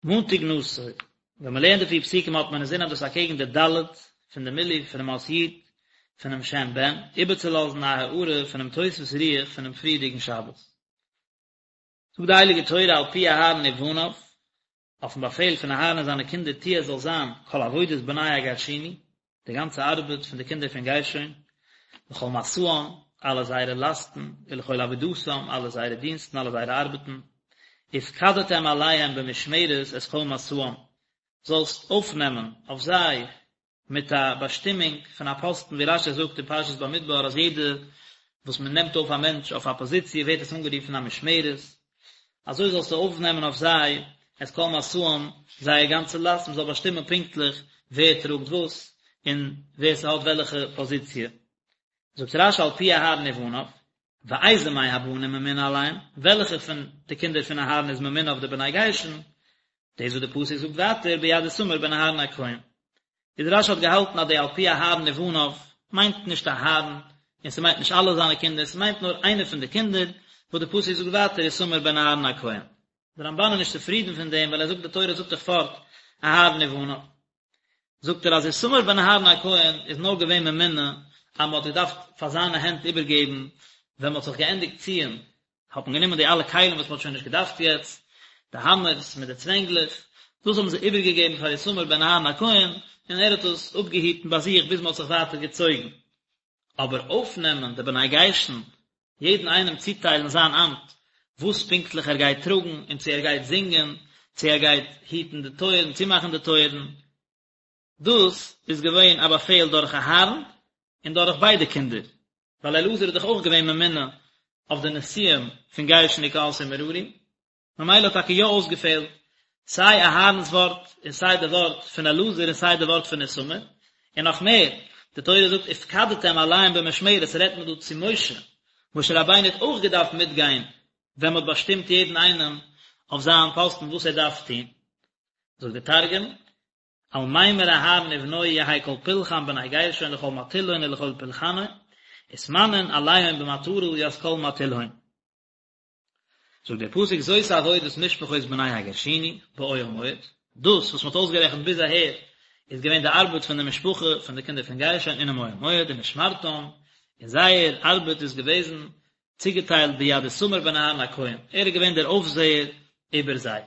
מאנטאג נשא, ווען מען לערנט די פיר פסוקים האט מען אינזין אז דאס איז אקעגן די ד' פון די מילוי פונעם אות י' פונעם שם בן, איבערצולאזן א הארה פונעם תוספות רוח פונעם פריערדיגן שבת. זאגט די הייליגע תורה על פי אהרן ובניו, אויפן באפעל פון אהרן און זיינע קינדער תהיה עס זאל זיין כל עבודת בני הגרשוני, די גאנצע ארבעט פון די קינדער פון גרשון, לכל משאם, אלע זייערע לאסטן, ולכל עבודתם, אלע זייערע דינסטן, אלע זייערע ארבעטן, ופקדתם עליהם במשמרת את כל משאם, זאלסט אויפנעמען אויף זיי מיט א באשטימונג פון א פאסטן, ווי רש"י זאגט אין פרשת במדבר אז יעדע וואס מען נעמט אויף א מענטש אויף א פאזיציע ווערט עס אנגערופן א משמרת, אזוי זאלסטו אויפנעמען אויף זיי את כל משאם, זייער גאנצע לאסט, מען זאל באשטימען פונקטליך ווער טראגט וואס, און ווער ס'האט וועלכע פאזיציע. זאגט רש"י על פי אהרן ובניו, ואיזה מהבנים ממונה עליהם, וועלכע פון די קינדער פון אהרן איז ממונה אויף די בני גרשון, דאס וואס די פסוק זאגט ווייטער ביד איתמר בן אהרן הכהן. איז רש"י האט געהאלטן אז די על פי אהרן ובניו מיינט נישט אהרן, און ס'מיינט נישט אלע זיינע קינדער, ס'מיינט נאר איינער פון די קינדער, וואס די פסוק זאגט ווייטער איתמר בן אהרן הכהן. די רמב"ן איז נישט צופרידן פון דעם, ווייל ער זאגט די תורה זאגט דאך פארט אהרן ובניו. זאגט ער אז איתמר בן אהרן הכהן איז נאר געווען ממונה אז מ'האט געדארפט פאר זיינע הענט איבערגעבן ווען מ'האט זיך געענדיגט ציען האט מען גענומען די אלע כלים וואס מען האט שוין נישט געדארפט יעצט, די האמערס מיט די צווענגלעך, דאס האבן זיי איבערגעגעבן פאר איתמר בן אהרן הכהן, און ער האט עס אפגעהיטן ביי זיך ביז מען האט זיך ווייטער געצויגן. אבער אויפנעמען די בני גרשון, יעדן איינעם צוטיילן זיין אמט, וואס פונקטליך ער גייט טראגן, און צו ער גייט זינגען, צו ער גייט היטן די טויערן, צומאכן די טויערן, דאס איז געווען א באפעל דורך אהרן און דורך ביידע קינדער, ווייל אלעזר איז דאך אויך געווען ממונה אויף די נשיאים פון גרשון וקהת און מררי, ממילא האט טאקע יא אויסגעפעלט סיי אהרן'ס ווארט און סיי די ווארט פון אלעזר און סיי די ווארט פון איתמר, און נאך מער, די תורה זאגט ופקדתם עליהם במשמרת רעדט מען דא צו משה, משה רבינו האט אויך געדארפט מיטגיין ווען מען האט באשטימט יעדן איינעם אויף זיין פאסטן וואס ער דארף טון. זאגט דער תרגום, על מימר אהרן ובנוי יהי כל פולחן בני גרשון לכל מטילהון ולכל פולחנהון, ותמנון עליהון במטרא ית כל מטילהון. זאגט דער פסוק זאת עבודת משפחות בני הגרשוני באוהל מועד, דאס וואס מען האט אויסגערעכנט ביז אהער איז געווען די ארבעט פון די משפחה פון די קינדער פון גרשון אינעם אוהל מועד ומשמרתם, און זייער ארבעט איז געוועזן צוגעטיילט ביד איתמר בן אהרן הכהן, ער איז געווען דער אויפזעער איבער זיי.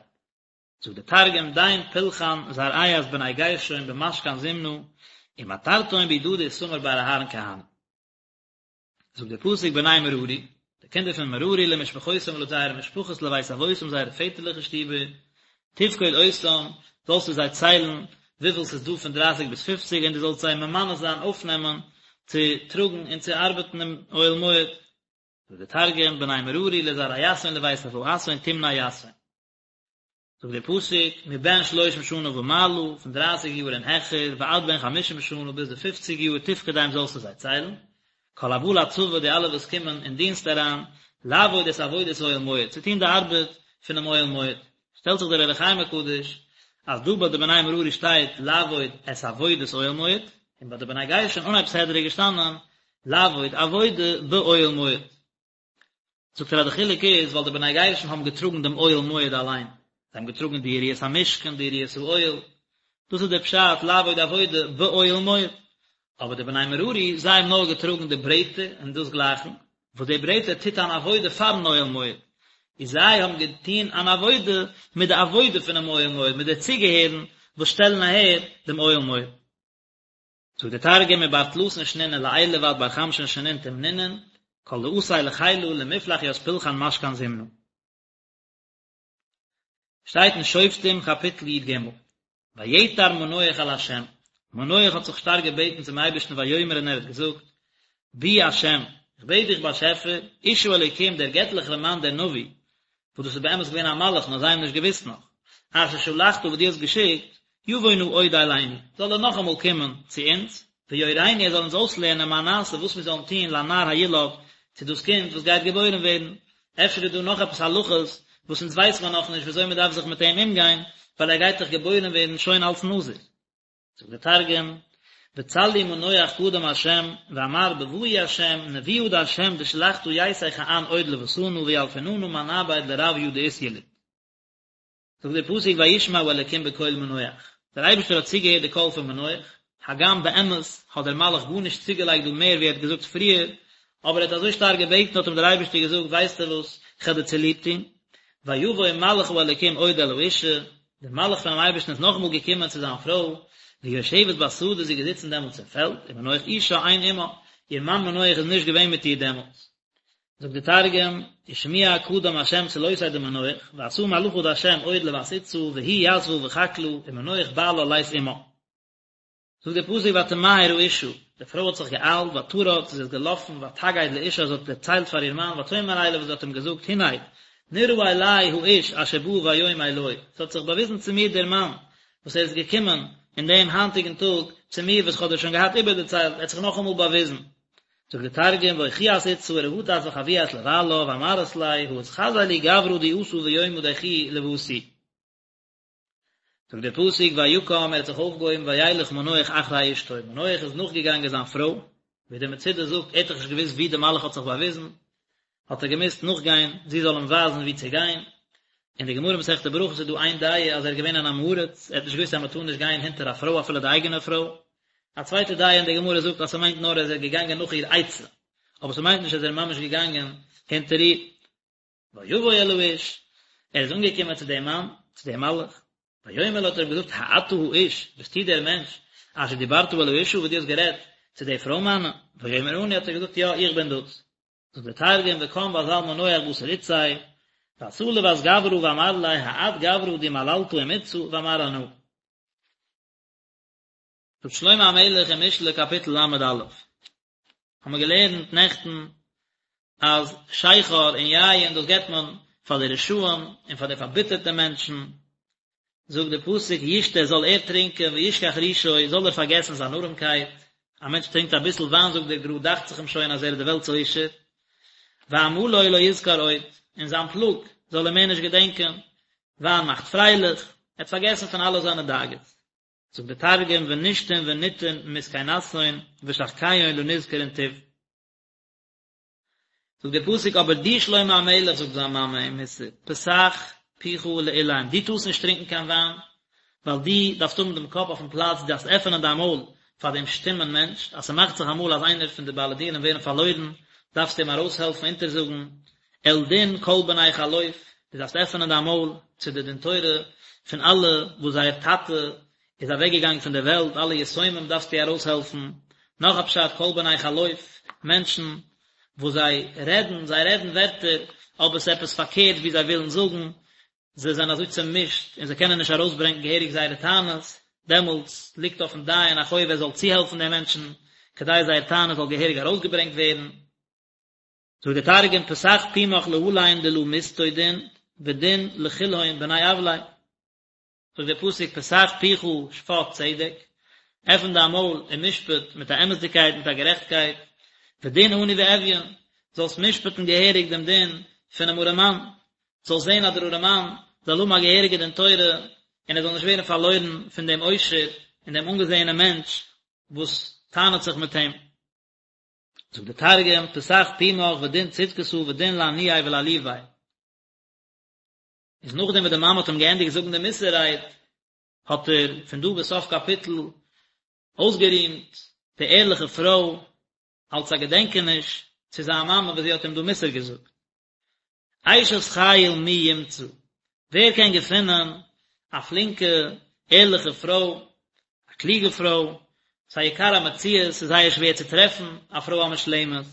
זאגט דער תרגום, דין פולחן זרעיית בני גרשון במשכן זימנא, ומטרתהון בידא דאיתמר בר אהרן כהנא. זאגט דער פסוק בני מררי, די קינדער פון מררי למשפחותם לויט זייערע משפחות לבית אבותם זייערע פעטערליכע שטיבער, תפקוד אותם, זאלסטו זיי ציילן וויפיל ס'איז דא פון דרייסיג ביז פופציג און דו זאלסט זיי ממנה זיין אויפנעמען צו טראגן און צו ארבעטן אין אוהל מועד. זאגט דער תרגום, בני מררי לזרעיתהון לבית אבהתהון תמני יתהון. זאגט דער פסוק, מבן שלושים שנה ומעלה, פון דרייסיג יאר און העכער, ועד בן חמישים שנה, ביז די פופציג יאר, תפקדם זאלסטו זיי ציילן, כל הבא לצבא, די אלע וואס קומען אין דינסט אריין, לעבוד את עבודת אוהל מועד, צו טון די ארבעט פונעם אוהל מועד. שטעלט זיך דער אור החיים הקדוש, אז דא ביי די בני מררי שטייט לעבוד את עבודת אוהל מועד, און ביי די בני גרשון אנהייב סדרה איז געשטאנען לעבוד עבודה באוהל מועד. זאגט ער אז די חילוק איז ווייל די בני גרשון האבן געטראגן דעם אוהל מועד אליין, זיי האבן געטראגן די יריעות המשכן, די יריעות האוהל, דאס איז דער פשט לעבוד עבודה באוהל מועד, אבער די בני מררי זיי האבן נאר געטראגן די ברעטער און דאס גלייכן, וואס די ברעטער טוט אן עבודה פארן אוהל מועד, איז זיי האבן געטון אן עבודה מיט די עבודה פונעם אוהל מועד, מיט די צוגעהערן וואס שטעלן אהער דעם אוהל מועד. זאגט דער תרגום מבר תלתין שנין ולעילא ועד בר חמשין שנין תמנינון, כל דאתי לחילא למפלח ית פולחן משכן זימנא. שטייט אין שופטים קאפיטל י ג, ויעתר מנוח אל ה', מנוח האט זיך שטארק געבעטן צום אייבערשטן ויאמר און ער האט געזאגט, בי ה', איך בעט דיך באשעפער, איש האלוקים דער געטליכער מאן דער נביא, וואס דאס איז באמת געווען א מלאך נאר זיי האבן נישט געוואוסט נאך, אשר שלחת וואס דו האסט געשיקט, יבוא נא עוד אלינו, זאל ער נאכאמאל קומען צו אונז, ויורנו ער זאל אונז אויסלערנען מה נעשה וואס מיר זאלן טון לנער הילוד, צו דאס קינד וואס גייט געבוירן ווערן, אפשר איז דא נאך עפעס הלכות וואס אונז ווייס מיר נאכנישט ווי אזוי מען דארף זיך מיט אים אומגיין, ווייל ער גייט דאך געבוירן ווערן שוין אלס נזיר. זאגט דער תרגום, וצלי מנוח קדם ה' ואמר בבאי ה' נבואה דה' דשלחתא ייתי כען עוד לוותנא וילפיננא מה נעביד לרביא דאתיליד. זאגט דער פסוק וישמע האלקים בקול מנוח, דער אייבערשטער האט צוגעהערט די קול פון מנוח, הגם באמת האט דער מלאך גארנישט צוגעלייגט דא מער ווי ער האט געזאגט פריער, אבער ער האט אזוי שטארק געבעטן האט אים דער אייבערשטער געזאגט ווייסטו וואס, איך וועל דיר צוליב טון, ויבוא מלאך האלקים עוד אל האשה, דער מלאך פונעם אייבערשטן איז נאכאמאל געקומען צו זיין פרוי, והיא יושבת בשדה, זי איז געזיצן דעמאלטס אין פעלד, ומנוח אישה אין עמה, איר מאן מנוח איז נישט געווען מיט איר דעמאלטס. זאגט די תרגום, ושמיע קדם השם צלותיה דמנוח, ואתא מלאכא דהשם עוד לות אתתא, והיא יתבא בחקלא, ומנוח בעלה לית עמה. זאגט דער פסוק ותמהר האשה, די פרוי האט זיך געאיילט, ותרץ, זי איז געלאפן, ותגד לאישה, זי האט דערציילט פאר איר מאן, ותאמר אליו, זי האט אים געזאגט, הנה, נראה אלי האיש אשר בא ביום אלי, עס האט זיך באוויזן צו מיר דער מאן, וואס ער איז געקומען אין דעם היינטיגן טאג צו מיר, וואס איך האב דיר שוין געהאט איבערדערציילט, ער האט זיך נאכאמאל באוויזן. זאגט דער תרגום, ואוחיאת אתתא ורהטת וחויאת לבעלה, ואמרת ליה, הא אתחזי לי גברא די אתא ביומא דיכי לוותי. זאגט דער פסוק ויקם ער האט זיך אויפגעהויבן וילך מנוח אחרי אשתו, מנוח איז נאכגעגאנגען זיין פרוי, ווי דער מצודה זאגט ער האט דאך נישט געוואוסט וואו דער מלאך האט זיך באוויזן, האט ער געמוזט נאכגיין זי זאל אים ווייזן וואו צו גיין, אין די גמרא מסכת ברכות איז דא איין דעה אז ער איז געווען אן עם הארץ, ער האט נישט געוואוסט אז מען טאר נישט גיין הינטער א פרוי אפילו די אייגענע פרוי, א צווייטע דעה אין די גמרא זאגט אז ס'מיינט נאר אז ער איז געגאנגען נאך איר עצה, אבער ס'מיינט נישט אז ער איז ממש געגאנגען הינטער איר. ויבוא אל האיש, ער איז אנגעקומען צו דעם מאן, צו דעם מלאך, ויאמר לו האט ער אים געזאגט, האתה האיש, ביסטו דער מענטש, אשר דיברת אל האשה וואס דו האסט גערעדט צו די פרוי מיינע? ויאמר אני האט ער געזאגט, יא, איך בין דאס. זאגט דער תרגום, וקם ואזל מנוח בתר אתתיה, ואתא לות גברא ואמר ליה, האת גברא די מללתא עם אתתא, ואמר אנא. זאגט שלמה המלך אין משלי קאפיטל ל"א, האבן מיר געלערנט נעכטן אז שכר און יין דאס געבט מען פאר די רשעים און פאר די פארביטערטע מענטשן, זאגט דער פסוק ישתה זאל ער טרינקען וישכח רישו זאל ער פארגעסן זיין ארעמקייט, א מענטש טרינקט אביסל וויין זאגט דער גר"א דאכט זיך אים שוין אז ער איז די וועלט'ס עושר, ועמלו לא יזכור עוד, און זיין פלאג זאל ער מער נישט געדענקען, וויין מאכט פרייליך, ער האט פארגעסן פון אלע זיינע דאגות. זאגט דער תרגום ונשתון ונטעון מסכנתהון ושחקיהון לא נזכרון תוב. זאגט דער פסוק אבער דו שלמה המלך זאגט זיין מאמע אים מוסר פתח פיך לאלם דו טארסט נישט טרינקען קיין וויין ווייל דו דארפסט האבן דעם קאפ אויפן פלאץ דו דארפסט עפענען דיין מויל פאר דעם שטומען מענטש אז ס'מאכט זיך אמאל אז איינער פון די בעלי דינים ווערן פארלוירן דארפסטו אים ארויסהעלפן אונטערזאגן אל דין כל בני חלוף, דו דארפסט עפענען דיין מויל צו די דין תורה פון אלע וואס זייער טאטע איז אוועק געגאנגען פון דער וועלט, אלע יתומים דארפסטו ארויסהעלפן, נאך א פשט כל בני חלוף, מענטשן וואס זיי רעדן, זיי רעדן ווערטער, אבער ס'איז עפעס פארקערט ווי זיי ווילן זאגן, זיי זענען אזוי צעמישט און זיי קענען נישט ארויסברענגען געהעריג זייערע טענות, דעמאלטס ליגט אויפן דיין א חוב ער זאל צוהעלפן די מענטשן כדי זייער טענה זאל געהעריג ארויסגעברענגט ווערן. זאגט דער תרגום פתח פומך להלין דלא מסטו דין ודין לכלהון בני עווליה זאגט דער פסוק פתח פיך שפט צדק, עפן דיין מויל און משפט מיט א אמת'דיגקייט מיט א גערעכטקייט, ודין עני ואביון, זאלסט משפט'ן געהעריג דעם דין פונעם ארעמאן, זאלסט זען אז דער ארעמאן זאל האבן א געהעריגע דין תורה און ער זאל נישט ווערן פארלוירן פון דעם עושר און דעם אנגעזעענעם מענטש וואס טענה'ט זיך מיט אים. זאגט דער תרגום, פתח פומך ודין צדקתא ודין לעניי ולעליבי. איז נאכדעם וואס די מאמע האט אים געענדיגט זאגן די מוסר רייד, האט ער פון דא ביז סוף קאפיטל אויסגערימט די ערליכע פרוי אלס א געדענקעניש צו זיין מאמע וואס זי האט אים דא מוסר געזאגט. אשת חיל מי ימצא, ווער קען געפינען א פלינקע ערליכע פרוי, א קלוגע פרוי, ס'איז א יקר המציאות, ס'איז זייער שווער צו טרעפן א פרוי א מושלמת,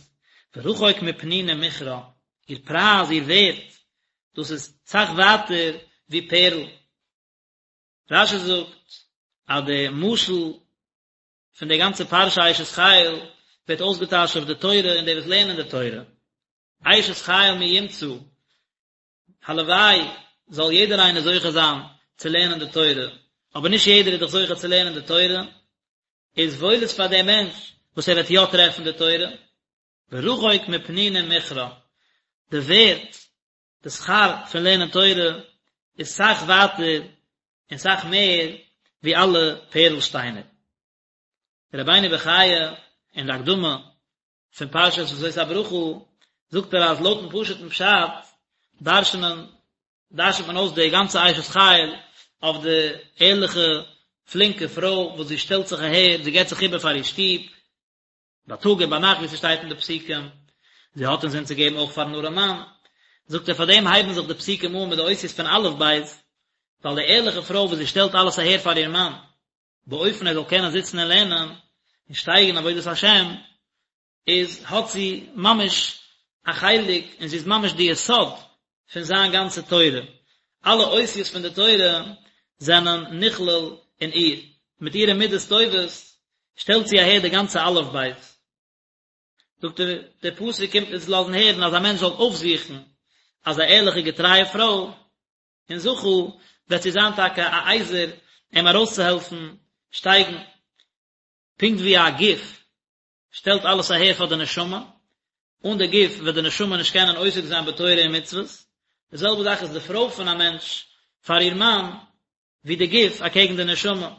ורחוק מפנינים מכרה, איר פרייז, איר ווערט, דאס איז סאך ווייטער ווי פערל. רש"י זאגט אז די משל פון די גאנצע פרשה אשת חיל ווערט אויסגעטייטשט אויף די תורה און די וואס לערנען די תורה. אשת חיל מי ימצא, הלוואי זאל יעדער איינער זוכה זיין צו לערנען די תורה, אבער נישט יעדער איז דאך זוכה צו לערנען די תורה, איז וואויל איז פאר דעם מענטש וואס ער וועט יא טרעפן די תורה, ורחוק מפנינים מכרה, די ווערט, די שכר פון לערנען תורה איז סאך ווייטער און סאך מער ווי אלע פערל שטיינער. רבינו בחיי אין די הקדמה פון פרשת וזאת הברכה זאגט ער אז לויטן פשוט'ן פשט דרש'נען. דרש'נט מען אויס די גאנצע אשת חיל אויף די ערליכע פלינקע פרוי וואס זי שטעלט זיך אהער, זי געבט זיך איבער פאר איר שטוב, בייטאג און ביינאכט ווי ס'שטייט אין די פסוקים, זי האט אינזין צו געבן אויך פארן ארעמאן, זאגט ער פאר דעם הייבן זיך די פסוקים אן מיט די אותיות פון אלף בית, ווייל די ערליכע פרוי וואס זי שטעלט אלעס אהער פאר איר מאן, באופן ער זאל קענען זיצן און לערנען, און שטייגן אין עבודת השם, איז האט זי ממש א חלק און זי איז ממש די יסוד פון זיין גאנצע תורה, אלע אותיות פון די תורה זענען נכלל אין איר, מיט אירע מידות טובות שטעלט זי אהער די גאנצע אלף בית. זאגט ער, דער פסוק קומט אונז לאזן הערן אז א מענטש זאל אויפזוכן אזא ערליכע געטרייע פרוי, און זכה וועט זי זיין טאקע א עזר אים ארויסצוהעלפן שטייגן, פונקט ווי א גוף שטעלט אלעס אהער פאר די נשמה, אן די גוף וועט די נשמה נישט קענען עוסק זיין בתורה און מצוות, די זעלבע זאך איז די פרוי פון א מענטש פאר איר מאן, ווי די גוף אקעגן די נשמה,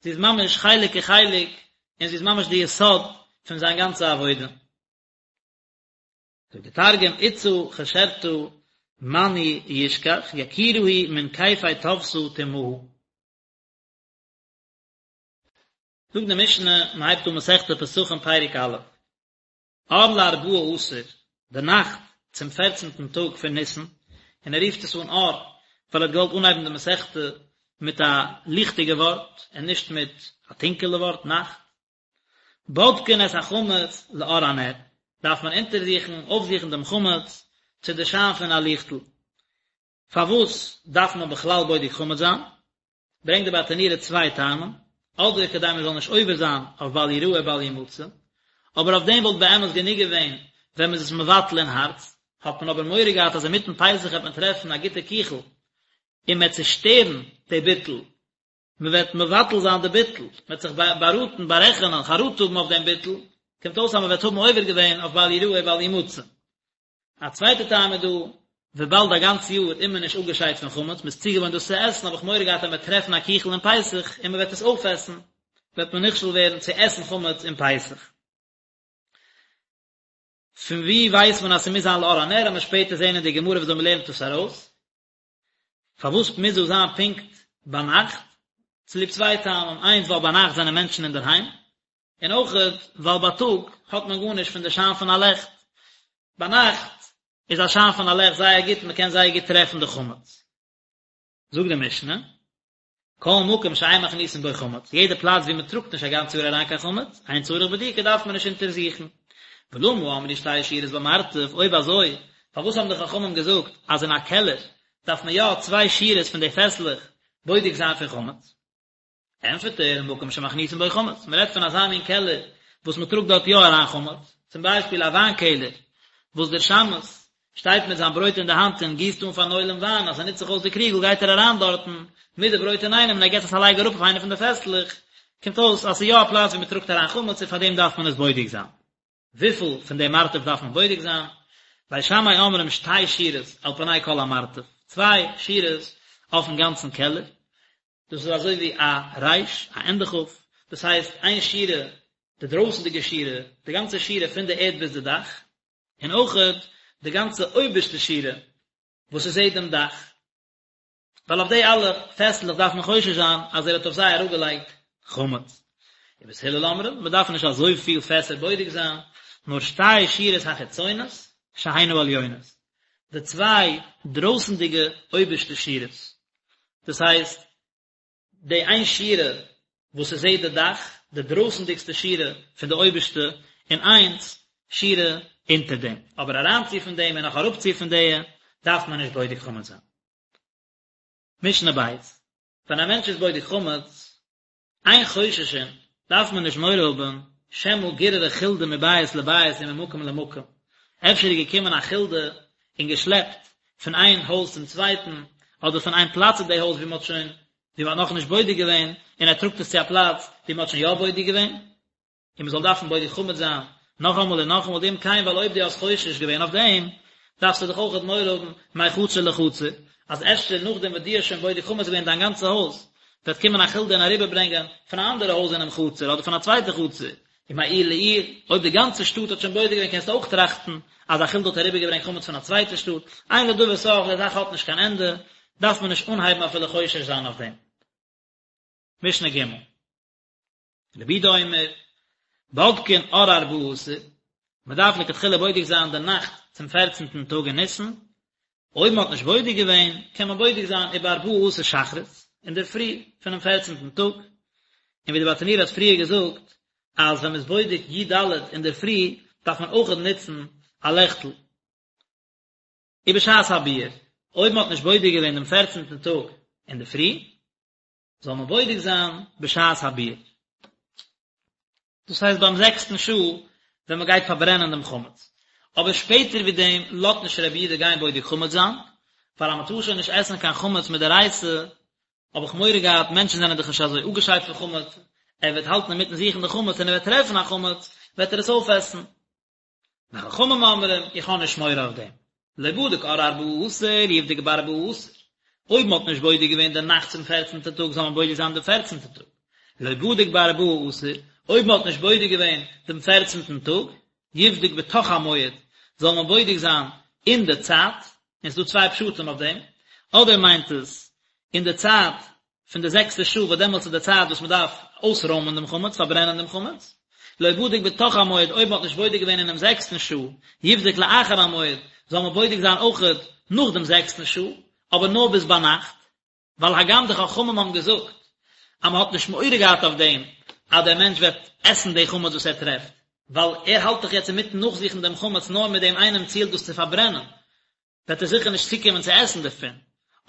זי איז ממש חלק כחלק, און זי איז ממש די יסוד פון זיין גאנצע עבודה. זאגט די תרגום, אתתא חשרתא מאני ישכח, יקירא היא מן כיפי טבתא תמהא. זאגט די משנה, מען הייבט אן מסכת פסחים פרק א', אור לארבעה עשר, די נאכט צום פערצנטן טאג פון ניסן, און ער רופט עס אן אור, ווייל ער האט געוואלט אנהייבן די מסכתא מיט א ליכטיגע ווארט, און נישט מיט א טונקעלע ווארט, נאכט. בודקין את החמץ לאור הנר, דארף מען אונטערזוכן, אויפזוכן דעם חמץ צו די שיין פון א ליכטל. פארוואס דארף מען בכלל בודק חמץ זיין? ברענגט די ברטנורא צוויי טעמים, אדער כדי מען זאל נישט עובר זיין אויף בל יראה בל ימצא, אבער אויף דעם וואלט באמת גענוג געווען ווען מען איז עס מבטל אין הארץ, האט מען אבער מורא געהאט אז אינמיטן פסח וועט מען טרעפן א גוטע קיכל און מען וועט צושטערן די ביטול, מען וועט מבטל זיין די ביטול, מען וועט זיך באראטן, בארעכענען, חרטה האבן אויף דעם ביטול, קומט אויס אז מען וועט האבן עובר געווען אויף בל יראה בל ימצא. א צווייטע טעם איז דא, וויבאלד א גאנץ יאר איז מען נישט אפגעשיידט פון חמץ, מען איז צוגעוואוינט דאס צו עסן, האב איך מורא געהאט אז מען וועט טרעפן א קיכל אין פסח און מען וועט עס אויפעסן, וועט מען נכשל ווערן צו עסן חמץ אין פסח. פון וואו ווייסט מען אז ס'מוז זיין לאור הנר, וועט מען שפעטער זען אין די גמרא וויאזוי מען לערנט דאס ארויס. פארוואס מוז דאס זיין פונקט ביינאכט? צוליב צוויי טעמים, איינס ווייל ביינאכט זענען מענטשן אינדערהיים, און אויכעט ווייל בייטאג האט מען גארנישט פון די שיין פון א לעכט, ביינאכט איז א שיין פון א לעכט זייער גוט און מען קען זייער גוט טרעפן די חמץ. זאגט די משנה, כל מקום שאין מכניסין בו חמץ, יעדע פלאץ וואו מען טראגט נישט א גאנץ יאר אריין קיין חמץ, אין צריך בדיקה דארף מען נישט אונטערזוכן. ולמה אמרו שתי שורות במרתף, אויב אזוי, פארוואס האבן די חכמים געזאגט אז אין א קעלער דארף מען יא צוויי שורות פון די פעסלעך בודק זיין פון חמץ? ענטפערט ער, מקום שמכניסין בו חמץ, מען רעדט פון אזא מין קעלער וואס מען טראגט דארט יא אריין חמץ, צום ביישפיל א וויין קעלער וואס דער שמש שטייט מיט זיין ברויט אין די האנט און גיסט אן פארן עולם וויין, אז ס'נוצט זיך אויס די קריגל גייט ער אריין דארטן מיט די ברויט אינאיינעם און ער געט עס א לייג אראפ אויף איינע פון די פעסלעך, קומט אויס אז ס'איז יא א פלאץ ווי מען טראגט אריין חמץ און פאר דעם דארף מען עס בודק זיין. וויפיל פון די מרתף דארף מען בודק זיין? בית שמאי אומרים שתי שורות על פני כל המרתף, צוויי שורות אויפן גאנצן קעלער, דאס איז אזוי ווי א ריש, א ענדע כף, דאס הייסט איין שורה, די דרויסנדיגע שורה, די גאנצע שורה פון די ערד ביז די דאך, און אויכעט די גאנצע אויבערשטע שורה וואס עס זעט דעם דאך, ווייל אויף די אלע פעסלעך דארף מען חושש זיין אז ער האט אויף זיי אראפגעלייגט חמץ. ובית הלל אומרים, מען דארף נישט אזויפיל פעסער בודק זיין, נאר שתי שורות החיצונות שהן העליונות, די צוויי דרויסנדיגע אויבערשטע שורות, דאס הייסט, די איין שורה וואס עס זעט די דאך, די דרויסנדיגסטע שורה פון די אויבערשטע, און איינס שורה אונטער דעם, אבער אריינצו פון דעם און נאך אראפצו פון די, דארף מען נישט בודק חמץ זיין. משנה בית, ווען א מענטש איז בודק חמץ, אין חוששין, דארף מען נישט מורא האבן, שמא גיררה חולדה מבית לבית וממקום למקום, אפשר איז געקומען א חולדה און געשלעפט פון איין הויז צום צווייטן, אדער פון איין פלאץ אין די הויז ווי מען האט שוין, ווי מען האט נאכנישט בודק געווען, און ער טראגט עס צו א פלאץ ווי מען האט שוין יא בודק געווען. און מען זאל דארפן בודק חמץ זיין נאכאמאל און נאכאמאל דאם כן ווייל אויב דו האסט חושש געווען אויף דעם דארפסטו דאך אויכעט מורא האבן מחצר לחצר אז אפשר נאכדעם וואס דו האסט שוין בודק חמץ געווען דיין גאנצע הויז וועט קומען א חולדה און אריבערברענגען פון א אנדערע הויז אינעם חצר אדער פון א צווייטע חצר ומעיר לעיר אויב די גאנצע שטאט האט שוין בודק געווען קענסטו אויך טראכטן אז. אז א חולדה האט אריבערגעברענגט חמץ פון א צווייטע שטאט, אין לדבר סוף, די זאך האט נישט קיין ענדע, דארף מען נישט אנהייבן אפילו חושש זיין אויף דעם. משנה ג'. רבי יהודה אומר, בודקין אור ארבעה עשר, מען דארף לכתחילה בודק זיין די נאכט צום פערצנטן טאג אין ניסן, אויב מען האט נישט בודק געווען, קען מען בודק זיין ובארבעה עשר שחרית, אינדערפרי פונעם פערצנטן טאג, און ווי די ברטנורא האט פריער געזאגט, אז ווען מען איז בודק י ד אינדערפרי, דארף מען אויכעט נוצן א לעכטל. ובשעת הביעור, אויב מען האט נישט בודק געווען דעם פערצנטן טאג אינדערפרי, זאל מען בודק זיין בשעת הביעור. דאס הייסט ביים זעקסטן שעה ווען מען גייט פארברענען דעם חמץ. אבער שפעטער ווי דעם לאזט נישט רבי יהודה גיין בודק חמץ זיין, ווייל אז מען טאר שוין נישט עסן קיין חמץ מדאורייתא, האב איך מורא געהאט, מענטשן זענען דאך נישט אזוי אפגעשיידט פון חמץ, ער וועט האלטן אינמיטן זוכן די חמץ און ער וועט טרעפן א חמץ, וועט ער עס אויפעסן. וחכמים אומרים, איך האב נישט מורא אויף דעם. לא בדק אור ארבעה עשר, יבדוק בארבעה עשר. אויב מען האט נישט בודק געווען די נאכט צום פערצנטע טאג זאל מען בודק זיין דעם פערצנטע טאג. לא בדק בארבעה עשר, אויב מען האט נישט בודק געווען דעם פערצנטן טאג, יבדוק בתוך המועד, זאל מען בודק זיין אין די צייט, און ס'איז דא צוויי פשטים אויף דעם, אדער מיינט עס אין די צייט פון די זעקסטע שעה וואס דעמאלטס איז די צייט וואס מען דארף אויסרוימען דעם חמץ, פארברענען דעם חמץ, לא בדק בתוך המועד, אויב מען האט נישט בודק געווען אינעם זעקסטן שעה, יבדוק לאחר המועד, זאל מען בודק זיין אויכעט נאך דעם זעקסטן שעה, אבער נאר ביז ביינאכט, ווייל הגם די חכמים האבן געזאגט אז מען האט נישט מורא געהאט אויף דעם אז דער מענטש וועט עסן די חמץ וואס ער טרעפט, ווייל ער האלט דאך יעצט אינמיטן נאכזוכן דעם חמץ נאר מיט דעם איינעם ציל דאס צו פארברענען, וועט ער זיכער נישט צוקומען צו עסן דערפון,